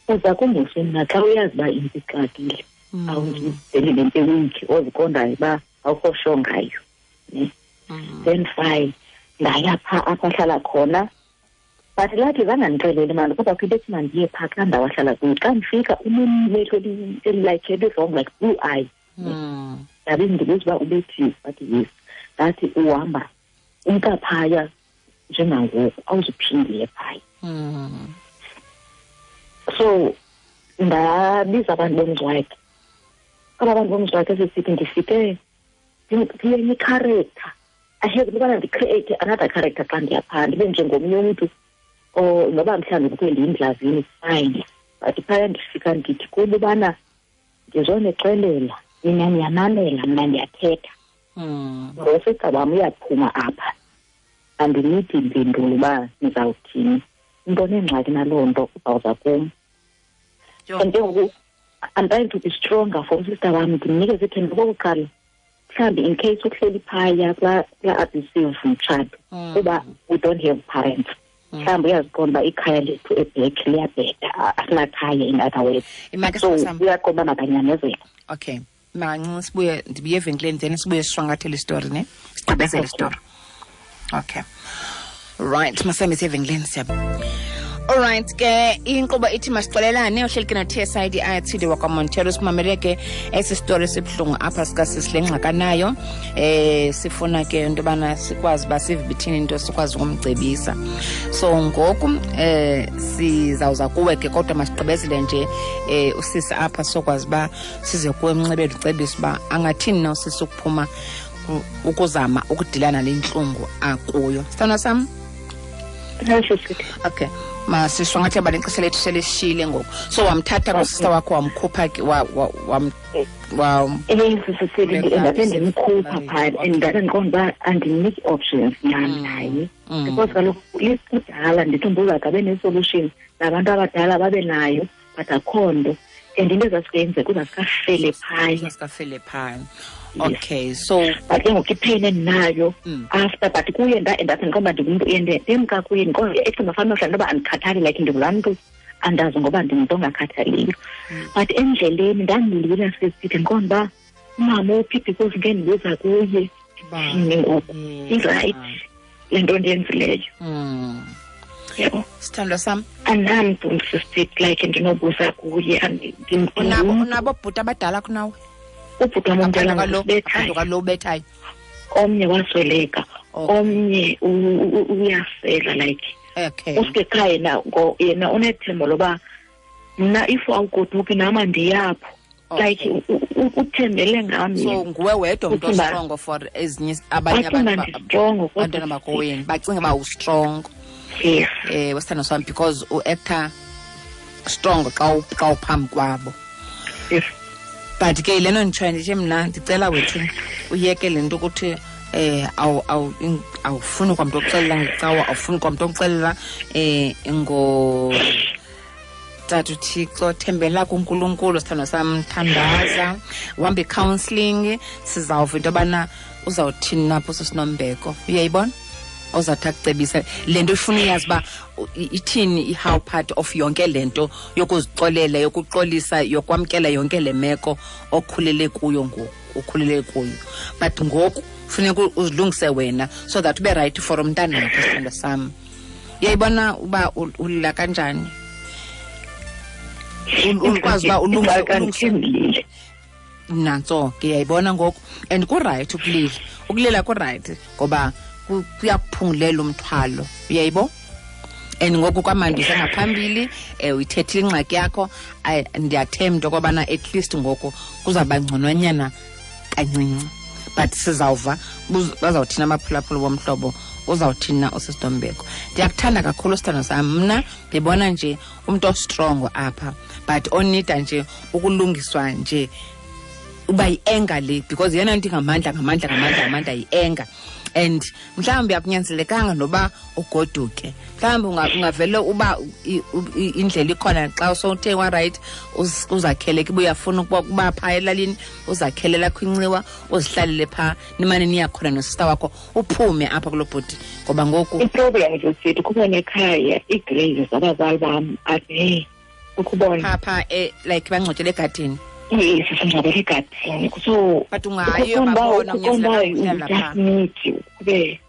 uza kumbuso mna xa uyazi uba into ixakile, awundizeli le nto ewiki oziqondayo uba awukho sure ngayo. Then fine, ndaya phaa apho ahlala khona. But lathi zange andixelele mani, kodwa kho into ethi mandiye phaa kulaa ndawo ahlala kuyo. Xa ndifika unemehlo elilike eli-wrong, like blue eye. Ndabe ndibuza uba ubethiwe, wathi yes. Ndathi uhamba umka phaya njengangoku, awuzuphinde phaya. So ndabiza abantu bomzi wakhe. Aba bantu bomzi wakhe sesithi ndifike ndiyenye i-character. I had ukubana ndi-create another character xa ndiya phaa, ndibe njengomnye umntu or noba mhlawumbi kukho ndiyindlavini, fine. But phaya ndifika ndithi kubo ubana ndizonixelela, nina niyamamela, mna ndiyathetha. Ngosista wam uyaphuma apha, andinidi mpendulo uba nizawuthini. Into onengxaki naloo nto uzawuza kum. And ke ngoku I'm trying to be stronger for usista wam, ndimnikeze ithemba okokuqala. Mhlawumbi in case uhleli phaya kulaa abusive mtshato, kuba we don't have parents. Mhlawumbi uyaziqonda uba ikhaya lethu ebhek liyabheda, asinakhaya in other words. So uyaqonda uba makanyamezele. Okay, mancinci sibuye, ndibuye evenkileni then sibuye sishwankathele isitori, ne? Sigqibezele isitori. Okay. Right, masihambe siye evenkileni siyabo. Alright ke, inkqubo ithi masixolelane, uhleli ke no-T_S_I_D Athile wakwaMontero. Simamele ke esi sitori sibuhlungu apha sikasisi le ngxakanayo. Sifuna ke into yobana sikwazi uba sive ithini into, sikwazi ukumcebisa. So ngoku sizawuza kuwe ke, kodwa masigqibezele nje usisi apha sokwazi uba size kuwe emnxebeni ucebise uba angathini na usisi ukuphuma ukuzama ukudilana le ntlungu akuyo. Sithandwa sam? Okay, masishwangathi abantu ixesha lethu selishile ngoku. So wamthatha kusista wakho, wamkhupha ke, Ndabe ndimkhupha phaa, and ndabe ndiqonda uba andiniki options nyhani naye. Because kaloku kudala ndithi umbuzo abe ne-solution, nabantu abadala babe nayo, but akho nto. And into ezazikuyenzeka uzazikafele phaya. Uzazikafele phaya. Okay, so but ke ngoku ipain endinayo after, but kuye ndathi ndiqonda uba ndingumntu ndemka kuye, ndiqonda ecinga fana mhlawumbi noba andikhathali, like ndingulaa mntu andazi ngoba ndingumntu ongakhathaliyo. But endleleni ndandilila sesithi ndiqonda uba umama uphi, because ngeke ndibuza kuye ndithini ngoku, i-right le nto ndiyenzileyo. Yebo. Sithandwa sam. Andinamntu sisithi like ndinobuza kuye. Unabo bhuti abadala kunawe? Ubhuti wam omdala ngubethayo. Kwalo ubethayo. Omnye wasweleka, omnye uyasela like. Okay. Usuke ekhaya yena, yena unethemba loba mna if awugoduki nam andiyapho. Like uthembele ngam. So nguwe wedwa umntu ostrongo for ezinye abanye abantu. Abantwana bakowenu bacinga uba ustrong. Yes. Wesithando sam, because u-actor strong xa uphambi kwabo. Yes. But ke lena nditshoyo ndithi mna ndicela wethu uyeke le nto ukuthi awufuni kwamntu okuxelela ngecawa, awufuni kwamntu okuxelela ngo Tata uThixo, thembela kuNkulunkulu, sithandwa sam, thandaza, uhambe i-counselling, sizawuva into yobana uzawuthini napho sisinombeko. Uyayibona? Ozawuthi akucebise le nto ifuna uyazi uba ithini i-how part of yonke le nto yokuzixolela, yokuxolisa, yokwamkela yonke le meko okhulele kuyo ngoku, ukhulele kuyo. But ngoku funeka uzilungise wena so that ube right for umntanakho, sithandwa sam. Uyayibona uba ulila kanjani? Ukwazi uba ulungise. Nantso ke, uyayibona ngoku. And ku-right ukulila. Ukulila ku-right ngoba kuyakuphungulela umthwalo. Uyayibo? And ngoku kwamandisa ngaphambili, uyithethile ingxaki yakho, ndiyathemba into yokobana at least ngoku kuzawuba ngcononyana kancinci. But sizawuva bazawuthina abaphulaphuli bomhlobo, uzawuthini na usisiNombeko. Ndiyakuthanda kakhulu sithando sam. Mna ndibona nje umntu ostrongo apha, but onida nje ukulungiswa nje uba yi-anger le, because yeyona nto ingamandla, ngamandla, ngamandla, ngamandla yi-anger. And mhlawumbi akunyanzelekanga noba ugoduke, mhlawumbi ungavele uba indlela ikhona xa sowuthe wa-right, uzakhele ke, uyafuna ukuba phaa elalini, uzakhele lakho inxiwa, uzihlalele phaa, nimane niyakhona nosista wakho, uphume apha kulo bhuti, ngoba ngoku I-problem zesithi kubona ekhaya ii-graves zabazali bam ade ukubona phaa like bangcwatyele egadini. Yes, singcwabele egadini. So but ungayi uyobabona, unyanzelekanga uhlala phaa. Kube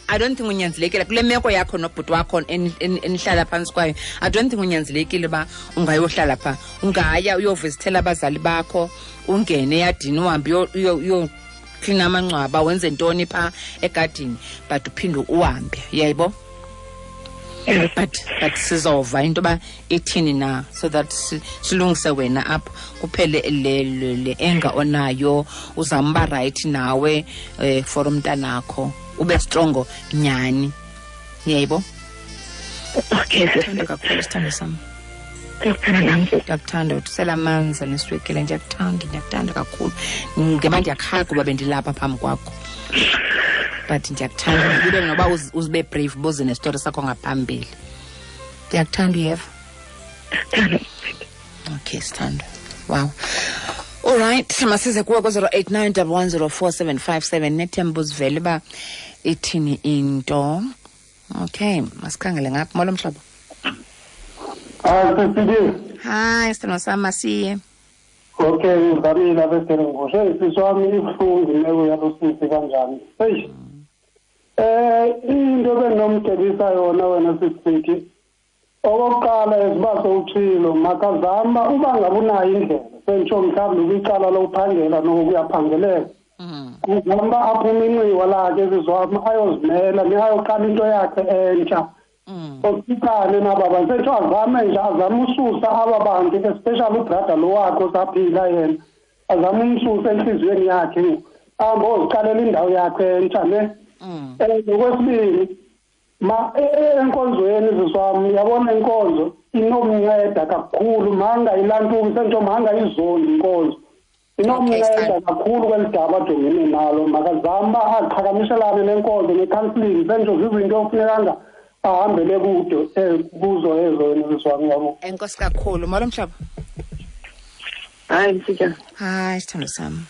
I don't think unyanzelekile kule meko yakho nobhuti wakho enihlala phantsi kwayo. I don't think unyanzelekile uba ungayohlala phaa. Ungaya uyovizithela abazali bakho, ungene eyadini, uhambe uyoklina amangcwaba, wenze ntoni phaa egadini, but uphinde uhambe, uyayibo? But sizova into yoba ithini na, so that silungise wena apha, kuphele le anger onayo, uzama uba right nawe for umntanakho, ube strongo nyhani, uyayibo? Okay, Ndiyakuthanda kakhulu, sithando sam. Ndiyakuthanda nam. Ndiyakuthanda, uthusela amanzi neswekile, ndiyakuthanda, ndiyakuthanda kakhulu. Ngema ndiyakhala kuba bendilapha phambi kwakho, but ndiyakuthanda. Ube noba uzibe brave, buze nesitori sakho ngaphambili. Ndiyakuthanda, uyeva? Okay, sithando. Wow. All right, masize kuwe ku-089 1104757. Nethemba uzivele uba ithini into. Okay, masikhangele ngapha. Molo mhlobo. Hayi, sisibili. Hayi, sithando sam, masiye. Okay, ngizamile abeseringoshe. Hey, sisi wami, ibuhlungu imeko yalo sisi kanjani. Hey. Into benginomcebisa yona wena sisithi, okokuqala eziba sowutshilo, makazama uba ngabe unayo indlela, sentsho mhlawumbi kwicala lokuphangela nokuyaphangeleka. Kuzama aphume inxiwa lakhe sisi wami, ayozimela, ayoqala into yakhe entsha. Osikane naba bantu, sentsho azame nje, azame ususa aba bantu, especially ubrother lo wakhe osaphila yena, azame umsusa enhliziyweni yakhe, ahambe oziqalela indawo yakhe entsha ne. Ngokwesibili, ma enkonzweni sisi wami, uyabona inkonzo inomnceda kakhulu, manga ilantuki sentsho, manga izondi inkonzo inomnceda kakhulu kweli daba ajongene nalo. Makazame aqhakamishelane nenkonzo ne-counseling, sentsho zizinto okufunekanga ahambele kude kuzo ezo wena sisi wami, yabo. Enkosi kakhulu. Molo mhlobo. Hayi, Msitshana. Hayi, sithando sami.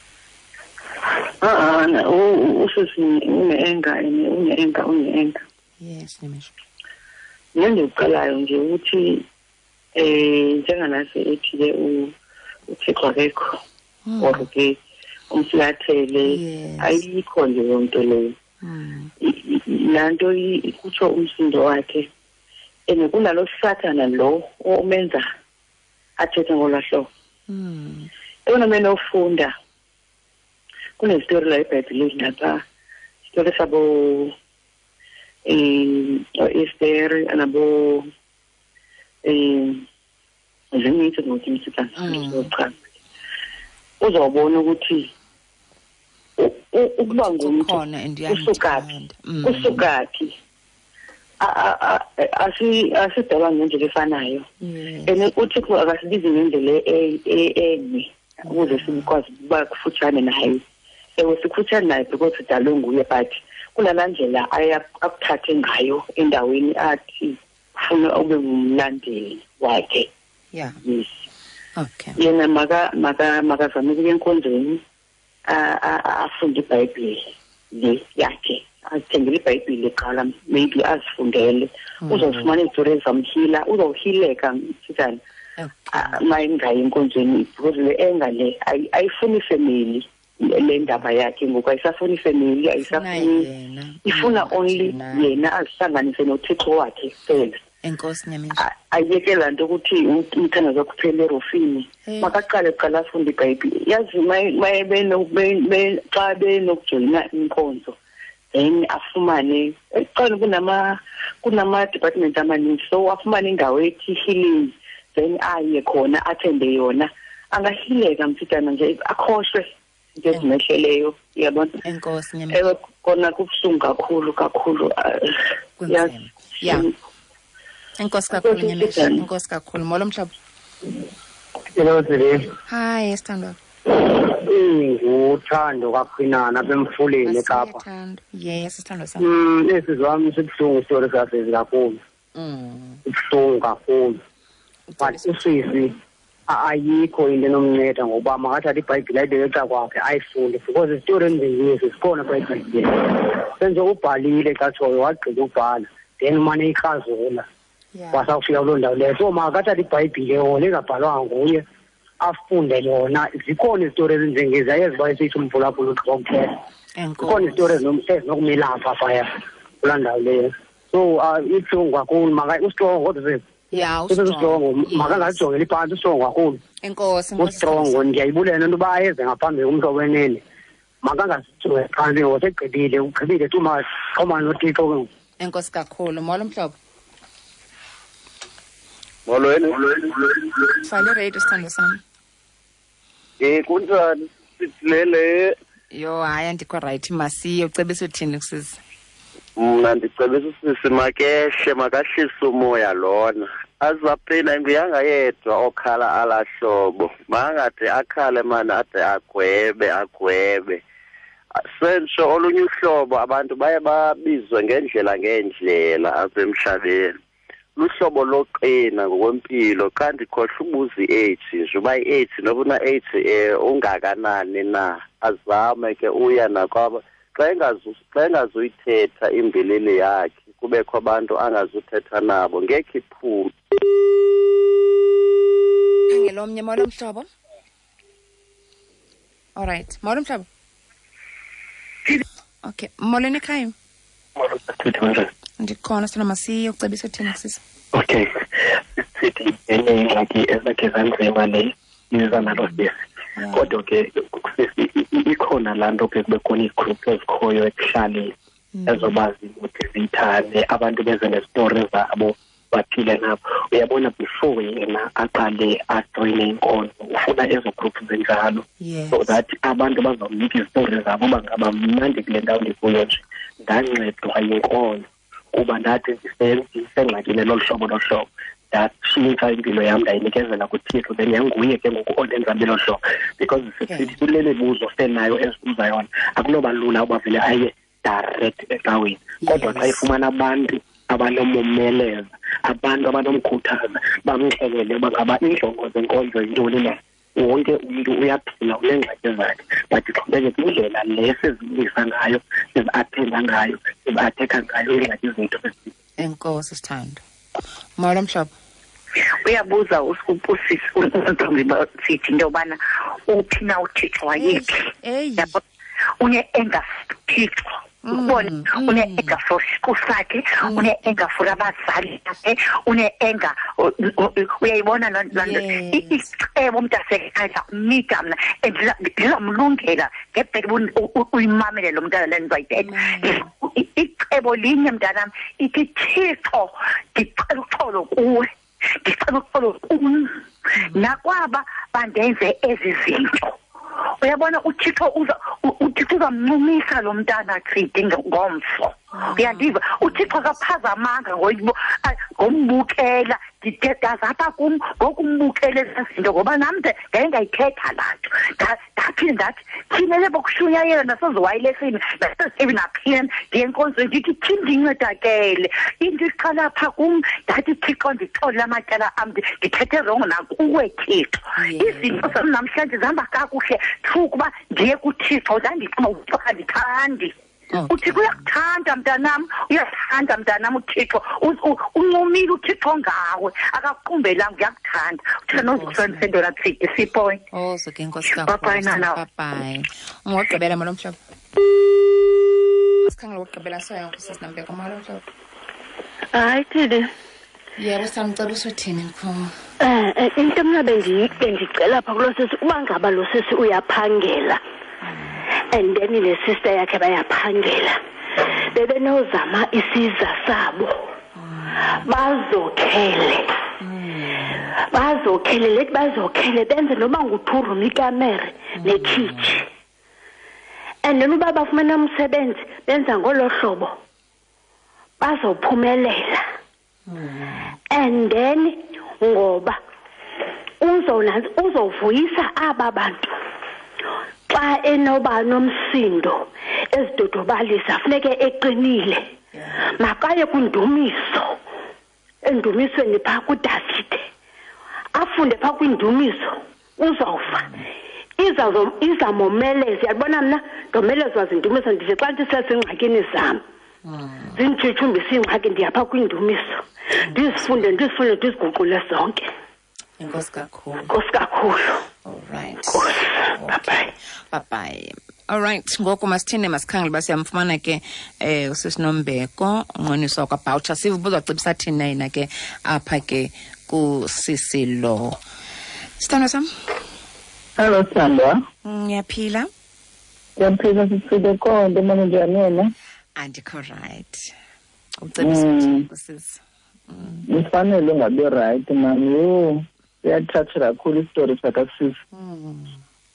Usisi une-anger, une-anger, une-anger. Yes, Nimisha. Mina ndikuqalayo nje ukuthi njenganase ethi-ke uThixo akekho, or ke umflathele, ayikho nje leyo nto leyo. Laa nto kutsho umsindo wakhe, and kunalo sathana lo omenza athethe ngolwaa hlobo. Eyona mene ofunda kunezitori la eBhayibhileni lapha, isitori sabo Esther nabo zininzi ngokuthi msitana. Uzobona ukuthi ukuba ngumuntu usukaphi, asidalwa ngendlela efanayo, and uThixo akasibizi ngendlela enye ukuze sikwazi ukuba kufutshane naye. Ewe, sikufutshane naye because sidalwe nguye, but kunalaa ndlela akuthathe ngayo endaweni athi ufuna ube ngumlandeli wakhe. Yes. Okay. Yena makazame ukuya enkonzweni, afunde iBhayibhile le yakhe, azithengele iBhayibhile kuqala, maybe azifundele, uzofumana izitori ezamhila, uzawuhileka msitana mayingayi enkonzweni, because le enga le ayifuni ifemeli. Le ndaba yakhe ngoku ayisafuni ifemeli, ayisafuni, ifuna only yena azihlanganise noThixo wakhe kuphela. Enkosi Nyamisa. Ayeke laa nto ukuthi umthandazo wakhe uphele erofini. Makaqale kuqala afunde iBhayibhile. Yazi xa benokujoyina inkonzo, then afumane ekuqala kunama-department amaninzi, so afumane indawo ethi healing, then aye khona athembe yona, angahileka msitana nje, akhohlwe into ezimehleleyo, uyabona. Enkosi Nyamisa. Ewe, kona kubuhlungu kakhulu kakhulu. Kunzima. Yeah. Enkosi kakhulu Nyamisa. Enkosi kakhulu. Molo mhlobo. Hello, Tsile. Hi, sithandwa. Nguthando kaQhinana apha emfuleni eKapa. Yes, sithando sam. Esi wami sibuhlungu isitori sasezi kakhulu. Ibuhlungu kakhulu. But usisi ayikho into enomnceda ngokuba makathathe iBhayibhile ayibeke eca kwakhe ayifunde, because isitori ezinjengesi sikhona phaa eBhayibhileni. Senje ubhalile xa tshoyo, wagqiba ubhala, then umane ikrazula. Wasawufika kuloo ndawo leyo. So makathathe iBhayibhile yona engabhalwanga nguye, afunde yona. Zikhona izitori ezinjengezi, ayeziba esithi umphulaphula ugqiba ukuthetha. Zikhona izitori ezinokumelapha phaya kulaa ndawo leyo. So ibuhlungu kakhulu, ustrongo kodwa sisi. Yeah, ustrongo, makangajongeli phantsi, ustrongo kakhulu. Enkosi, ustrongo. Ndiyayibulela into yoba ayeze ngaphambili kumhlobo wenene. Makangazijonge phantsi ngoba segqibile, ugqibile too much. Xhomana noThixo ke ngoku. Enkosi kakhulu. Molo mhlobo. Molweni. Fale radio sithando sam. Kunjani? Sithilele. Yho, hayi andikho right, masiye. Ucebisa uthini kusisi? Mna ndicebisa usisi makehle, makahlise umoya lona. Azaphina nguyanga yedwa okhala alahlobo. Makangade akhale mani, ade agwebe. Sentsho olunye uhlobo abantu baye babizwe ngendlela ngendlela apha emhlabeni. Luhlobo loqina ngokwempilo, xa ndikhohlwa ubuza i-AIDS nje, uba i-AIDS noba una-AIDS ungakanani na, azame ke uya nakwaba. Xa engazuyithetha imbilini yakhe, kubekho abantu angazuthetha nabo, ngekhe iphume. Khangela omnye. Molo mhlobo. All right, molo mhlobo. Okay, molweni ekhaya. Molo, sithethe. Ndikhona sithando, masiye. Ucebisa uthini kusisi? Okay, sithi enye ingxaki ezakhe zanzima le iza nalo sisi. Kodwa ke sisi ikhona laa nto ke kube khona iigroup ezikhoyo ekuhlaleni ezoba zimotiveyithane, abantu beze nezitori zabo baphile nabo. Uyabona, before yena aqale ajoyine inkonzo, ufuna ezo group zinjalo, so that abantu bazawunika izitori zabo uba ngaba mnandi kule ndawo ndikuyo nje ndancedwa yinkonzo, kuba ndathi ndisengxakini lolu hlobo lolu hlobo, ndatshintsha impilo yam ndayinikezela kuThixo, then yanguye ke ngoku ondenza belo hlobo. Because sithi kule mibuzo senayo ezibuza yona, akunoba lula uba vele aye direct ecaweni. Kodwa xa ifumana abantu abanomomeleza, abantu abanomkhuthaza, bamxelele uba ngaba iinjongo zenkonzo yintoni na. Wonke umntu uyaphila, uneengxaki zakhe, but ixhomekeke kwindlela le sizilungisa ngayo, sizi-athenda ngayo, sizi-athekha ngayo iingxaki zethu. Enkosi sithando. Molo mhlobo. Uyabuza usisi untombi sithi into yobana uphi na uThixo wayephi. Une-anger Thixo. Ubone une-anger for siqu sakhe, une-anger for abazali bakhe, une-anger, uyayibona loo nto. Icebo mntasekhaya kumnika mna, and ndizamlungela ngebheke uyimamele lo mntana le nto ayithetha. Icebo linye mntanam, ithi Thixo ndicela uxolo kuwe, ndicela uxolo kum nakwaba bandenze ezi zinto. Uyabona uThixo uThixo uzamncumisa lo mntana Chidi ngomso. Uyandiva, uThixo akaphazamanga ngombukela, ndidedazapha kum ngokumbukela ezi zinto, ngoba nam ndaye ndayithetha laa nto. Ndaphinde ndathi thina le bokushunyayela naseziwayilesini nasezitevi naphina ndiye enkonzweni ndithi thini ndincedakele. Into iqala pha kum, ndathi Thixo ndixolele amatyala am, ndithethe rongo nakuwe Thixo. Izinto zam namhlanje zihamba kakuhle through kuba ndiye kuThixo, ndandicinga uThixo akandithandi. uThixo uyakuthanda mntanam, uyakuthanda mntanam uThixo. Uncumile uThixo ngawe, akakuqumbelanga, uyakuthanda. uThixo nozukusebenzisa into latsidi sipoint. Oh, so ke nkosi kakhulu. Bye bye nana. Bye bye. Ungogqibela molo mhlobo. Sikhangela ukugqibela soya kusisi Nambeko. Molo mhlobo. Hayi Thidi. Yebo, samcela usothini mkhulu? Into mna bendicela pha kulo sisi, uba ngaba lo sisi uyaphangela and then le sister yakhe bayaphangela, bebenozama isiza sabo bazokhele lethi bazokhele benze noma ngu-2 room ikamere nekhitshi, and then uba bafumene umsebenzi benza ngolo hlobo bazophumelela. And then ngoba uzovuyisa aba bantu Xa enoba nomsindo ezidodobalisa funeke eqinile. Makaye kwindumiso, endumisweni phaa kuDavide, afunde phaa kwindumiso, uzawuva. Izamomeleza. Yabona mna ndomelezwa zindumiso, ndithi xa ndisezingxakini zam zinditshitshumbisa iingxaki, ndiyapha kwindumiso, ndizifunde, ndizifunde, ndiziguqule zonke. Enkosi kakhulu. Enkosi kakhulu. All right. Enkosi. Bye-bye. Bye-bye. All right, ngoku masithini, masikhangele uba siyamfumana ke usisinombeko unqoniswa kwaBoucher. Sive uba uzawucebisa thina yena ke apha ke kusisi lo. Sithandwa sam. Hello, Sithandwa. Ngiyaphila. Ngiyaphila sisile konke, manje njani wena? Andikho right. Ucebisa uthini kusisi? Ufanele ungabi right, mami. Yho, siyathatha kakhulu isitori sakasisi.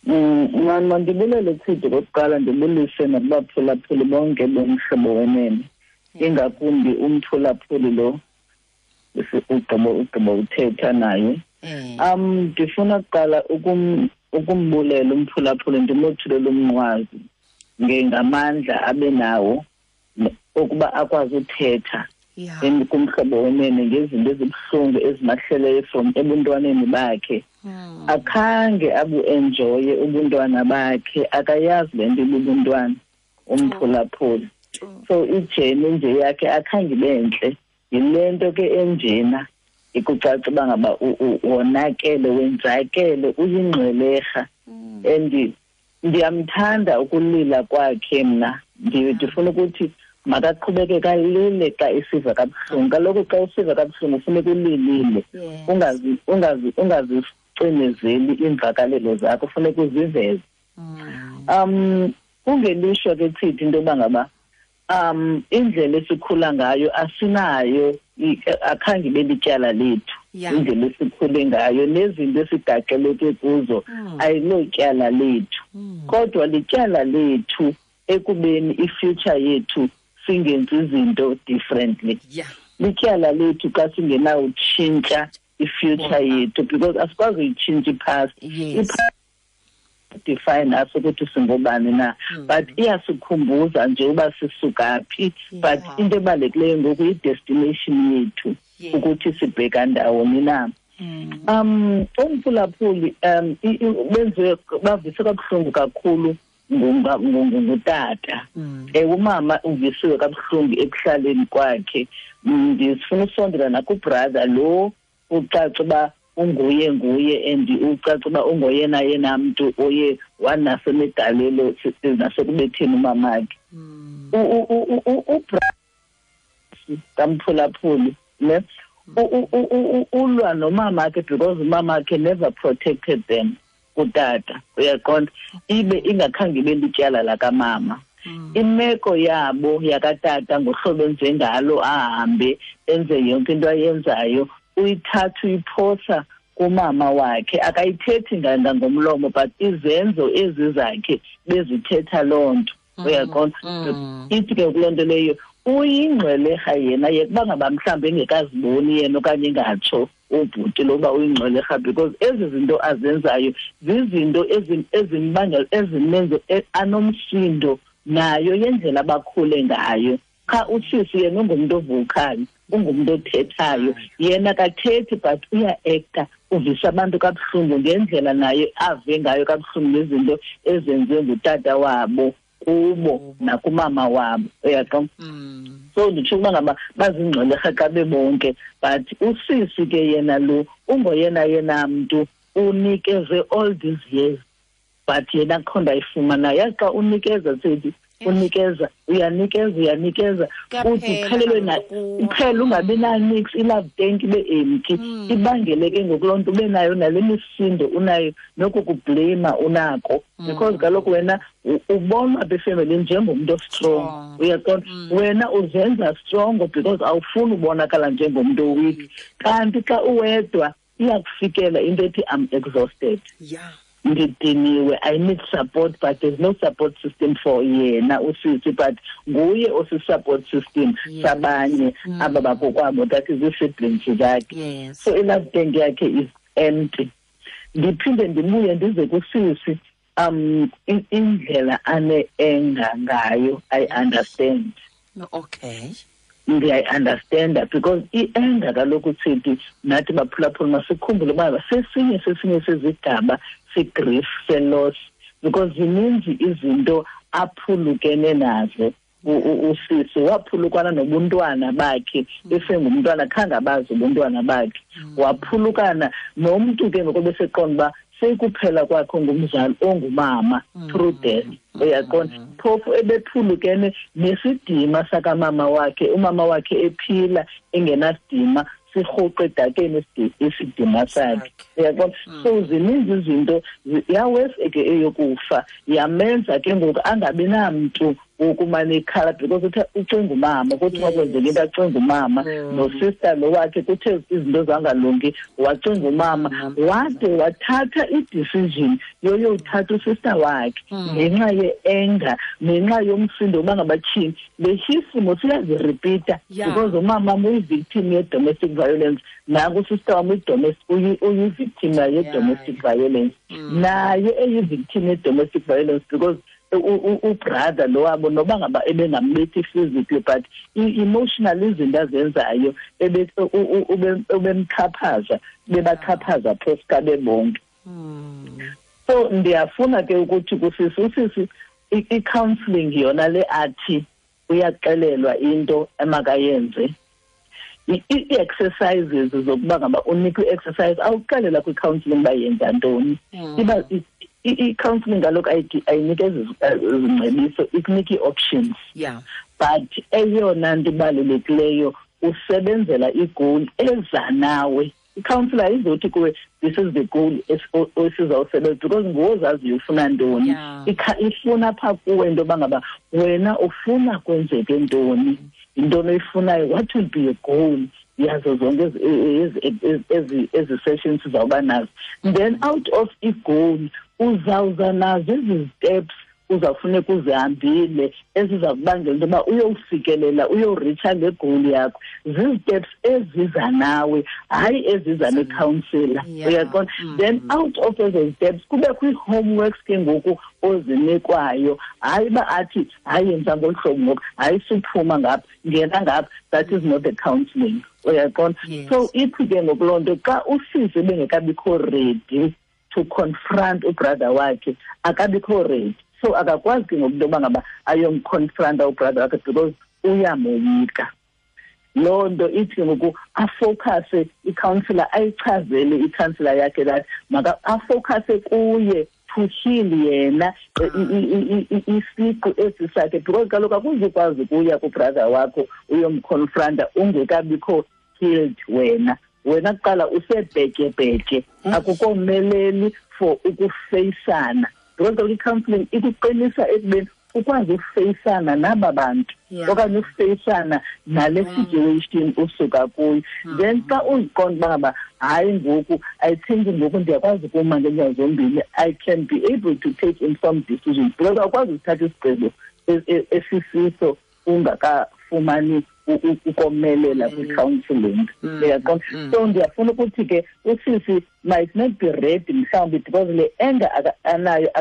Mani, mandibulele Tsidi kokuqala, ndibulise nakubaphulaphuli bonke bomhlobo wenene. Ingakumbi umphulaphuli lo ugqibo uthetha naye. Ndifuna kuqala ukumbulela umphulaphuli, ndimothulele umnqwazi ngamandla abe nawo okuba akwazi uthetha kumhlobo wenene ngezinto ezibuhlungu ezimahleleyo from ebuntwaneni bakhe. Akhange abu-enjoye ubuntwana bakhe, akayazi le nto ibubuntwana umphulaphuli. So ijeni nje yakhe akhange ibe ntle. Yile nto ke enjena ikucaca uba ngaba wonakele, wenzakele, uyingxwelerha. And ndiyamthanda ukulila kwakhe mna. Ndifuna ukuthi makaqhubeke kalile xa isiva kabuhlungu. Kaloku xa usiva kabuhlungu funeka ulilile. Ungazicinezeli iimvakalelo zakho, funeka uziveze. Kungelishwa ke Tsidi into yoba ngaba indlela esikhula ngayo asinayo, akhange ibe lityala lethu. Indlela esikhule ngayo nezinto esigaxeleke kuzo ayilotyala lethu. Kodwa lityala lethu ekubeni i-future yethu singenzi izinto differently. Lityala lethu xa singenawutshintsha i-future yethu, because asikwazi uyitshintsha i-past. I-past define us ukuthi singobani na, but iyasikhumbuza nje uba sisuka phi. But into ebalulekileyo ngoku yi-destination yethu, ukuthi sibheka ndawoni na. Umphulaphuli benziwe bavise kabuhlungu kakhulu ngutata. Umama uvisiwe kabuhlungu ekuhlaleni kwakhe. Ndifuna usondela nakubrother lo ucaca uba unguye nguye, and ucaca uba ungoyena yena mntu oye wanasemegalelo nasekubetheni umamakhe. Ubrother kamphulaphuli ne ulwa nomamakhe because umamakhe never protected them kutata, uyaqonda, ibe ingakhange ibe lityala lakamama. Imeko yabo yakatata ngohlobo enze ngalo, ahambe enze yonke into ayenzayo, uyithatha uyiphosa kumama wakhe. Akayithethi ngomlomo, but izenzo ezi zakhe bezithetha loo nto, uyaqonda. Ithi ke kuloo nto leyo uyingxwelerha yena, yekuba ngaba mhlawumbi engekaziboni yena okanye engatsho ubhuti loba uyingxwelerha, because ezi zinto azenzayo zizinto ezimbangela ezimenze anomsindo nayo yendlela abakhule ngayo. Cha, usisi yena ungumntu ovocal, ungumntu othethayo. Yena akathethi but uya-acta, uvisa abantu kabuhlungu ngendlela naye ave ngayo kabuhlungu ngezinto ezenziwe ngutata wabo kubo nakumama wabo, uyaqonda. So nditsho ukuba ngaba bazingxwelerha xa bebonke, but usisi ke yena lo ungoyena yena mntu unikeze all these years, but yena akho nto ayifumanayo. Yazi xa unikeza Tsidi, unikeza, uyanikeza, uyanikeza, uthi uphelelwe na, uphele ungabi na-nix, i-love tank ibe empty. Ibangele ke ngoku loo nto ube nayo nale misindo unayo, noku kubleyima unako. Because kaloku wena ubonwa apha efemelini njengomntu ostrong, uyaqonda. Wena uzenza strong because awufuni ubonakala njengomntu oweak. Kanti xa uwedwa iyakufikela into ethi I'm exhausted. Ndidiniwe, I need support, but there's no support system for yena usisi, but nguye osi-support system sabanye aba bakokwabo, that is ii-siblings zakhe. So i-love tank yakhe is empty. Ndiphinde ndibuye ndize kusisi. Indlela ane-anger ngayo, I understand. Okay. Ndiyayi-understanda because i-anger kaloku sithi nathi baphulaphula masikhumbule uba sesinye sezigaba se-grief, se-loss, because zininzi izinto aphulukene nazo. Usisi waphulukana nobuntwana bakhe esengumntwana, khange abazi ubuntwana bakhe. Waphulukana nomntu ke ngoku beseqonda uba sekuphela kwakhe ngumzali ongumama through death. Uyaqonda? Phofu ebephulukene nesidima sakamama wakhe, umama wakhe ephila engenasidima, sirhuqe edakeni isidima sakhe. Uyaqonda? So zininzi izinto, yawesi ke eyokufa yamenza ke ngoku angabi namntu wokumane ikhala, because uthe ucinga umama, kuthi makwenzeka into acinga umama, nosister lo wakhe kuthe izinto zangalungi wacinga umama, wade wathatha i-decision yoyothatha usister wakhe ngenxa ye-anger, ngenxa yomsindo uba ngabatyhini. Le sisimo siyaziripita because umama uyi-victim ye-domestic violence, nanku usister wam uyi-victim ye-domestic violence, naye eyi-victim ye-domestic violence because ubrother lo wabo noba ngaba ebengambethi physically but emotionally izinto azenzayo ubemxhaphaza, bebaxhaphaza phofu bebonke. So ndiyafuna ke ukuthi kusisi usisi i-counseling yona le athi uyaxelelwa into emakayenze, i-exercises zokuba ngaba unikwe i-exercise awuxelela kwi-counseling uba yenza ntoni. Iba i-counseling kaloku ayinikezi izingcebiso, ikunika ii-options. But eyona nto ibalulekileyo usebenzela i-goal eza nawe. I-counselor ayizothi kuwe this is the goal esizawusebenza, because nguwe ozaziyo ufuna ntoni. Ifuna phaa kuwe into yoba ngaba wena ufuna kwenzeke ntoni, yintoni oyifunayo, what will be your goal yazo zonke ezi sessions sizawuba nazo. Then out of i-goal uzawuza nazo ezi steps uzawufuneka uzihambile eziza kubangela into yoba uyowufikelela, uyoritsha le goal yakho. Zii-steps eziza nawe, hayi eziza nekhansila. Uyaqonda? Then out of ezo steps kubekho ii-homeworks ke ngoku ozinikwayo, hayi uba athi hayi yenza ngolu hlobo ngoku, hayi suphuma ngapha, ngena ngapha. That is not the counselling. Uyaqonda? So ithi ke ngoku loo nto xa usisi ebengekabikho ready to confront ubrother wakhe, akabikho ready. So akakwazi ke ngoku into yoba ngaba ayomconfronta ubrother wakhe because uyamoyika. Loo nto ithi ngoku afocuse i-counselor, ayichazele i-counselor yakhe that maka afocuse kuye to heal yena isiqu esi sakhe, because kaloku akuzukwazi ukuya kubrother wakho uyomconfronta ungekabikho healed wena. Wena kuqala usebhetyebhetye, akukomeleli for ukufeyisana. Because kaloku i-counseling ikuqinisa ekubeni ukwazi ukufeyisana naba bantu okanye ukufeyisana nale situation usuka kuyo. Then xa uziqonda uba ngaba hayi ngoku I think ngoku ndiyakwazi ukuma ngeenyawo zombini, I can be able to take informed decisions, because awukwazi ukuthatha isigqibo esisiso ungakafumani ukomelela kwi-counseling. Uyaqonda? So ndiyafuna ukuthi ke usisi might not be ready mhlawumbi because le anger anayo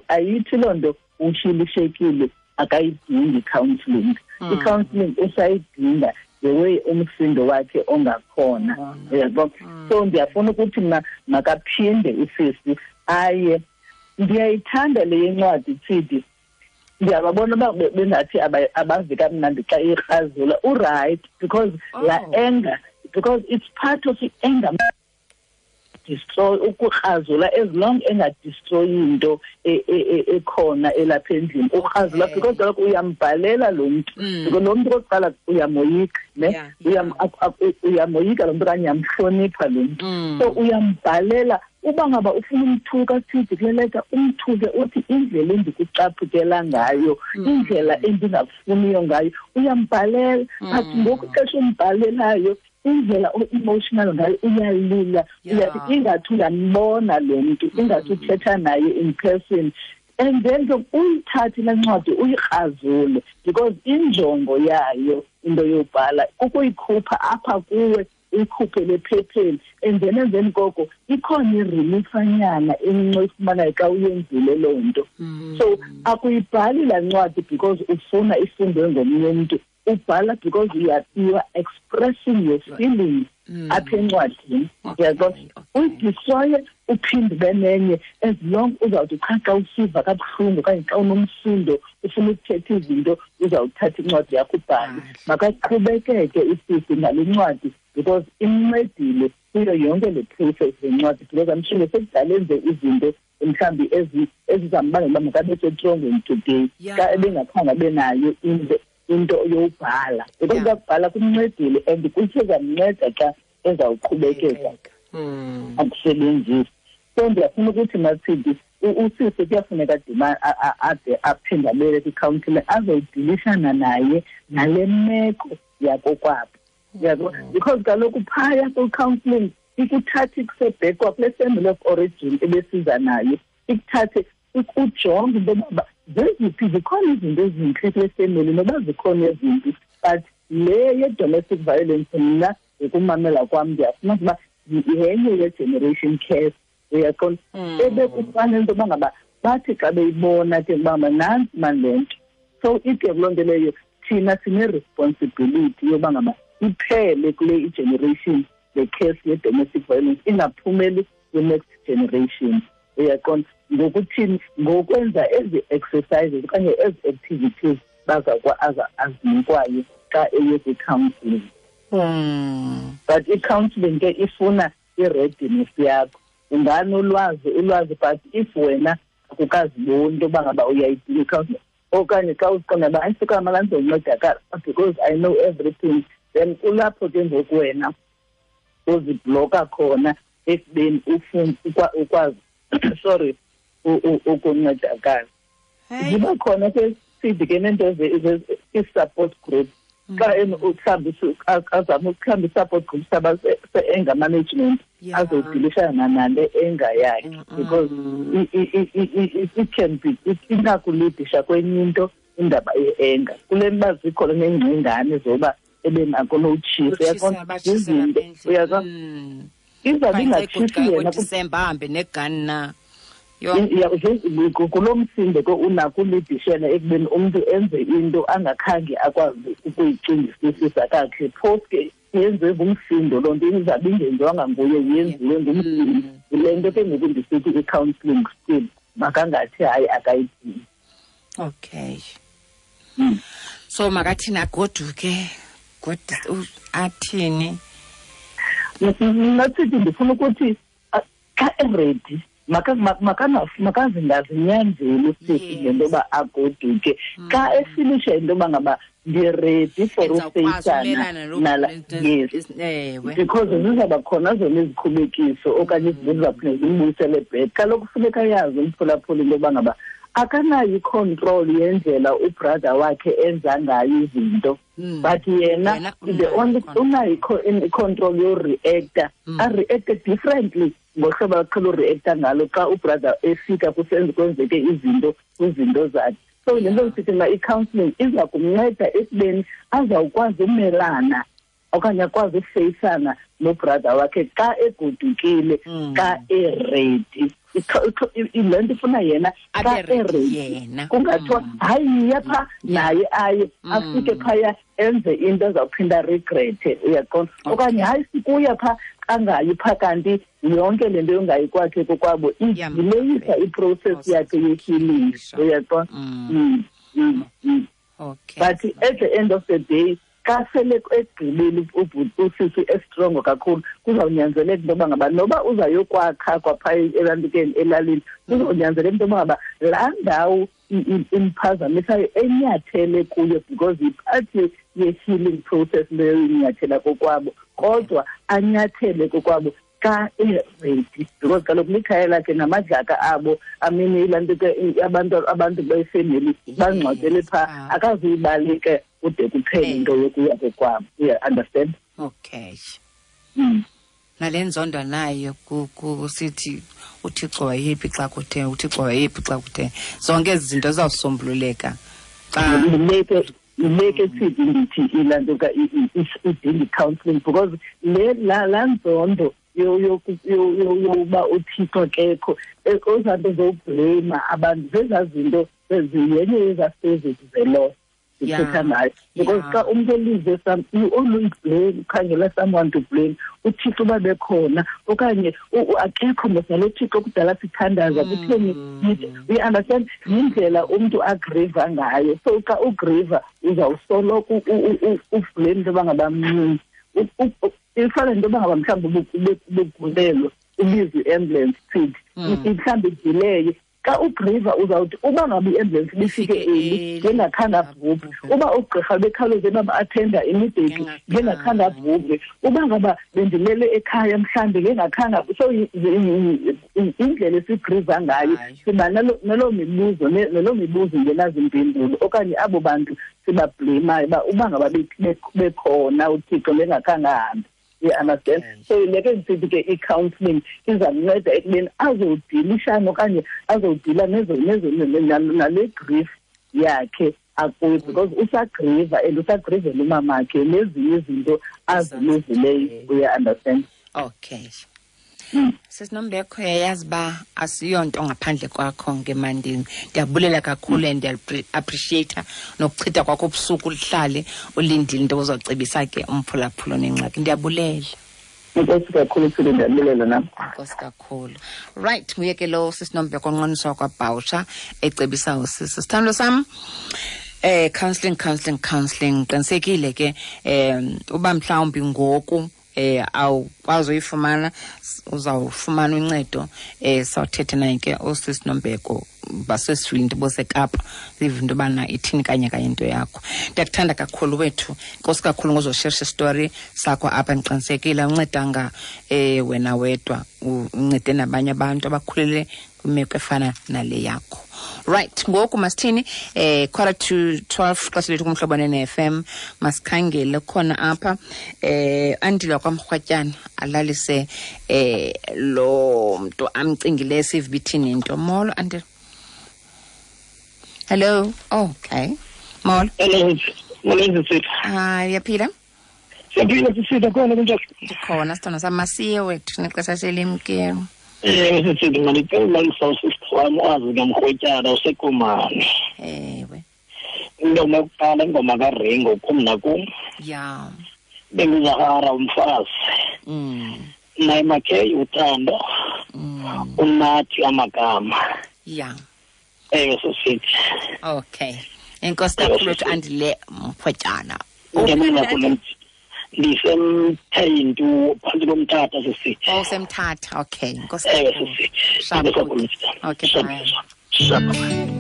ayithi loo nto ushilishekile, akayidingi i-counseling. I-counseling usayidinga the way umsindo wakhe ongakhona. Uyabona? So ndiyafuna ukuthi mna makaphinde usisi aye. Ndiyayithanda le yencwadi Tsidi. Ndiyababona uba bengathi abavi kamnandi xa ikrazula. Uright, because la anger, because it's part of i-anger destroy, ukukrazula as long engadestroyi into ekhona elapha endlini. Ukrazula because kaloku uyambhalela lo mntu, because lo mntu okokuqala uyamoyika, ne? Uyamoyika lo mntu okanye uyamhlonipha lo mntu. So uyambhalela uba ngaba ufuna umthuka sithi kule leta, umthuke uthi indlela endikucaphukela ngayo, indlela endingakufuniyo ngayo, uyambhalela. But ngoku ixesha umbhalelayo indlela o-emotional ngayo, uyalila, uyathi ingathi uyambona lo mntu, ingathi uthetha naye in person. And then ke uyithathe le ncwadi uyikrazule, because injongo yayo into yobhala kukuyikhupha apha kuwe Uyikhuphe lephepheni, and then emveni koko ikhona ireliefanyana encinci oyifumanayo xa uyenzile loo nto. So akuyibhali laa ncwadi because ufuna ifundwe ngomnye umntu, ubhala because you are expressing your feelings apha encwadini, uyaqonda? Uyidestroye, uphinde ube nenye, as long uzawuthi qha xa usiva kabuhlungu okanye xa unomsindo ufuna ukuthetha izinto, uzawuthatha incwadi yakho ubhale. Makaqhubekeke isisi ngale ncwadi because imncedile kuyo yonke le process le ncwadi, because I'm sure sekudala enze izinto mhlawumbi ezizambangela uba makabe setrongweni today xa ebengakhange abe nayo into yowubhala, because ukubhala kumncedile and kusezamnceda xa ezawuqhubekeka akusebenzisi. So ndiyafuna ukuthi, Mathidi, usisi kuyafuneka ade aphinde abele kwi-counselling azodilishana naye nale meko yakokwabo, yabo, because kaloku phaya kwi-counselling ikuthatha ikusebhekwa kule family of origin ebesiza nayo, ikuthathe ujonge into yoba zeziphi, zikhona izinto ezintle kule family noba zikhona ezimbi, but le ye-domestic violence, mna ngokumamela kwam ndiyafuna ukuba yenye ye-generation curse, uyaqonda, ebekufanele into yoba ngaba bathi xa beyibona ke uba nantsi mani le nto. So ide kuloo nto leyo thina sine-responsibility yoba ngaba iphele kule i-generation le case ye-domestic violence, ingaphumeli kwi-next generation, uyaqonda? Ngokuthini? Ngokwenza ezi exercises okanye ezi activities baza azinikwayo xa eye kwi-counselling. But i-counselling ke ifuna i-readiness yakho. Unganolwazi ulwazi, but if wena akukaziboni into yoba ngaba uyayidinga i-counselling, okanye xa uziqonda uba ayisuka mala ndizoncedakala because I know everything, then kulapho ke ngoku wena uzibhloka khona ekubeni ufune ukwazi, sorry, ukuncedakala. Ziba khona ke sithi ke neento i-support group, xa mhlawumbi azame mhlawumbi i-support group saba se-anger management, azodilishana nale anger yakhe, because it can be inakulidisha kwenye into indaba ye-anger kule nto uba zikhona neengcingane zoba ebenako nowutshisa, uyaqonda, izinto, uyaqonda, izawube ingatshisi yena. Disemba ahambe negani na? Kulo msindo ke unako ulidishela ekubeni umntu enze into angakhange akwazi ukuyicingisisisa kakhe, phofu ke yenziwe ngumsindo loo nto, izabe ingenziwanga nguye, yenziwe ngumsindo. Yile nto ke ngoku ndisithi i-counselling still makangathi hayi akayidingi. Okay, so makathini? Agoduke? Athini? Mna sithi ndifuna ukuthi xa e-ready makazingazinyanzeli usisi ngento yoba agoduke. Xa efilisha into yoba ngaba ndi-ready for ufeyisana nala, yes, because zizawuba khona zona izikhubekiso okanye izinto ezizawuphinda zimbuyisele back. Kaloku funeka yazi umphulaphuli into yoba ngaba akanayo i-control yendlela u-brother wakhe enza ngayo izinto, but yena the only unayo i-control yoreacta, areacte differently ngohlobo aqhela ureacta ngalo xa u-brother efika kusenze kwenzeke izinto kwizinto zakhe. So le nto ndisithi mna i-counselling iza kumnceda ekubeni azawukwazi umelana okanye akwazi ukufeyisana no-brother wakhe xa egodukile, xa e-ready. Le nto ifuna yena xa e-ready, kungathiwa hayi yiya phaa naye, aye afike phaya enze into ezawuphinda regrete, uyaqonda, okanye hayi sikuya phaa, angayi phaa, kanti yonke le nto yongayi kwakhe kokwabo idileyisa i-process yakhe ye-healing, uyaqonda? But at the end of the day, xa sele egqibile usisi e-strong kakhulu, kuzawunyanzeleka into yoba ngaba noba uzayokwakha kwaphaa elantukeni elalini, kuzawunyanzeleka into yoba ngaba laa ndawo imphazamisayo enyathele kuyo, because yi-part ye-healing process leyo inyathela kokwabo, kodwa anyathele kokwabo xa e-ready, because kaloku likhaya lakhe namadlaka abo amini, ilaa nto ke abantu befemeli bangcwatyele phaa, akazuyibaleka kude kuphele into yokuya kokwabo, uya understand? Okay. Nale nzondo nayo kusithi uThixo wayephi xa kuthe, uThixo wayephi xa kuthe, zonke ezi zinto zizawusombululeka xa leke. Yile ke sithi ndithi ilaa nto idinga i-counselling, because le laa nzondo yokuba uThixo akekho, ezaa nto zowubhleyima abantu zezaa zinto yenye yezaa stages ze-loss ndithetha ngayo. Because xa umntu elize some, you always blame, ukhangela someone to blame. UThixo uba bekhona okanye akekho mos nalo Thixo kudala sithandaza kutheni, we understand yindlela umntu agriva ngayo. So xa ugriva uzawusoloko ublame into yoba ngaba mncinci. Ifana nento yoba ngaba mhlawumbi ubugulelwa ubizwe i-ambulance thithi mhlawumbi idileye. Xa ugriva uzawuthi uba ngaba i-ambulance ibifike early ngengakhange abhubhe, uba ugqirha bekhawuleze bam-athenda immediately ngengakhange abhubhe, uba ngaba bendilele ekhaya mhlawumbi ngengakhange. So indlela esigriva ngayo siba naloo mibuzo naloo mibuzo ingenazimpendulo, okanye abo bantu sibabhleymayo uba uba ngaba bekhona uThixo ngengakhange ahambe. You understand? So le ke ndisithi ke i-counselling izamnceda ekubeni azodilishana okanye azodila nale grief yakhe akuyo, because usagriva and usagrivela umamakhe nezinye izinto aziluzileyo. Uya-understand? Okay. Sisinombekho, uyayazi uba asiyonto ngaphandle kwakho ngemandini. Ndiyabulela kakhulu and ndiya-appreciate nokuchitha kwakho ubusuku uhlale ulindile into ozocebisa ke umphulaphula nengxaki. Ndiyabulela. Enkosi kakhulu, Thuli, ndiyabulela nam. Enkosi kakhulu. Right, nguye ke lo Sisinombeko Nqoniswa kwaBhawusha ecebisa usisi. Sithandwa sam, counseling, counseling, counseling. Qinisekile ke uba mhlawumbi ngoku awukwazi uyifumana, uzawufumana uncedo. Sawuthetha naye ke usisi Nombeko basesifile boseKapa, sive into yobana ithini kanye kanye into yakho. Ndiyakuthanda kakhulu wethu, enkosi kakhulu ngozosherisha isitori sakho apha. Ndiqinisekile awuncedanga wena wedwa, uncede nabanye abantu abakhulele kwimeko efana nale yakho. Right, ngoku masithini, 11:45 xesha lethu kuMhlobo ne-FM. Masikhangele khona apha Andile kwaMrhwatyana alalise lo mntu amcingileyo sive ithini into. Molo Andile. Hello. Oh, okay. Molo. Hello. Molo sisi. Hayi, uyaphila? Siyaphila sisi, khona kunjani? Ndikhona sithando sam, masiye wethu nexesha selimkelo. Sisi, mandicela ulalisa usisi wam wazi kamrhwetyana useKomani. Ewe. Ingoma yokuqala ingoma kaRingo kum nakum. Ya. Benguzahara umfazi. Naye Makhe uthando. Unathi amagama. Ya. Ewe sisithi. Okay. Enkosi kakhulu wethu Andile Mrhwetyana. Ndiyabulela kakhulu. Ndisemthentu phantsi koMthatha sisithi. Oh, semthatha. Okay. Enkosi Ewe kakhulu. sisithi. Sharp. Enkosi kakhulu. Okay, Sharp. bye. Sharp.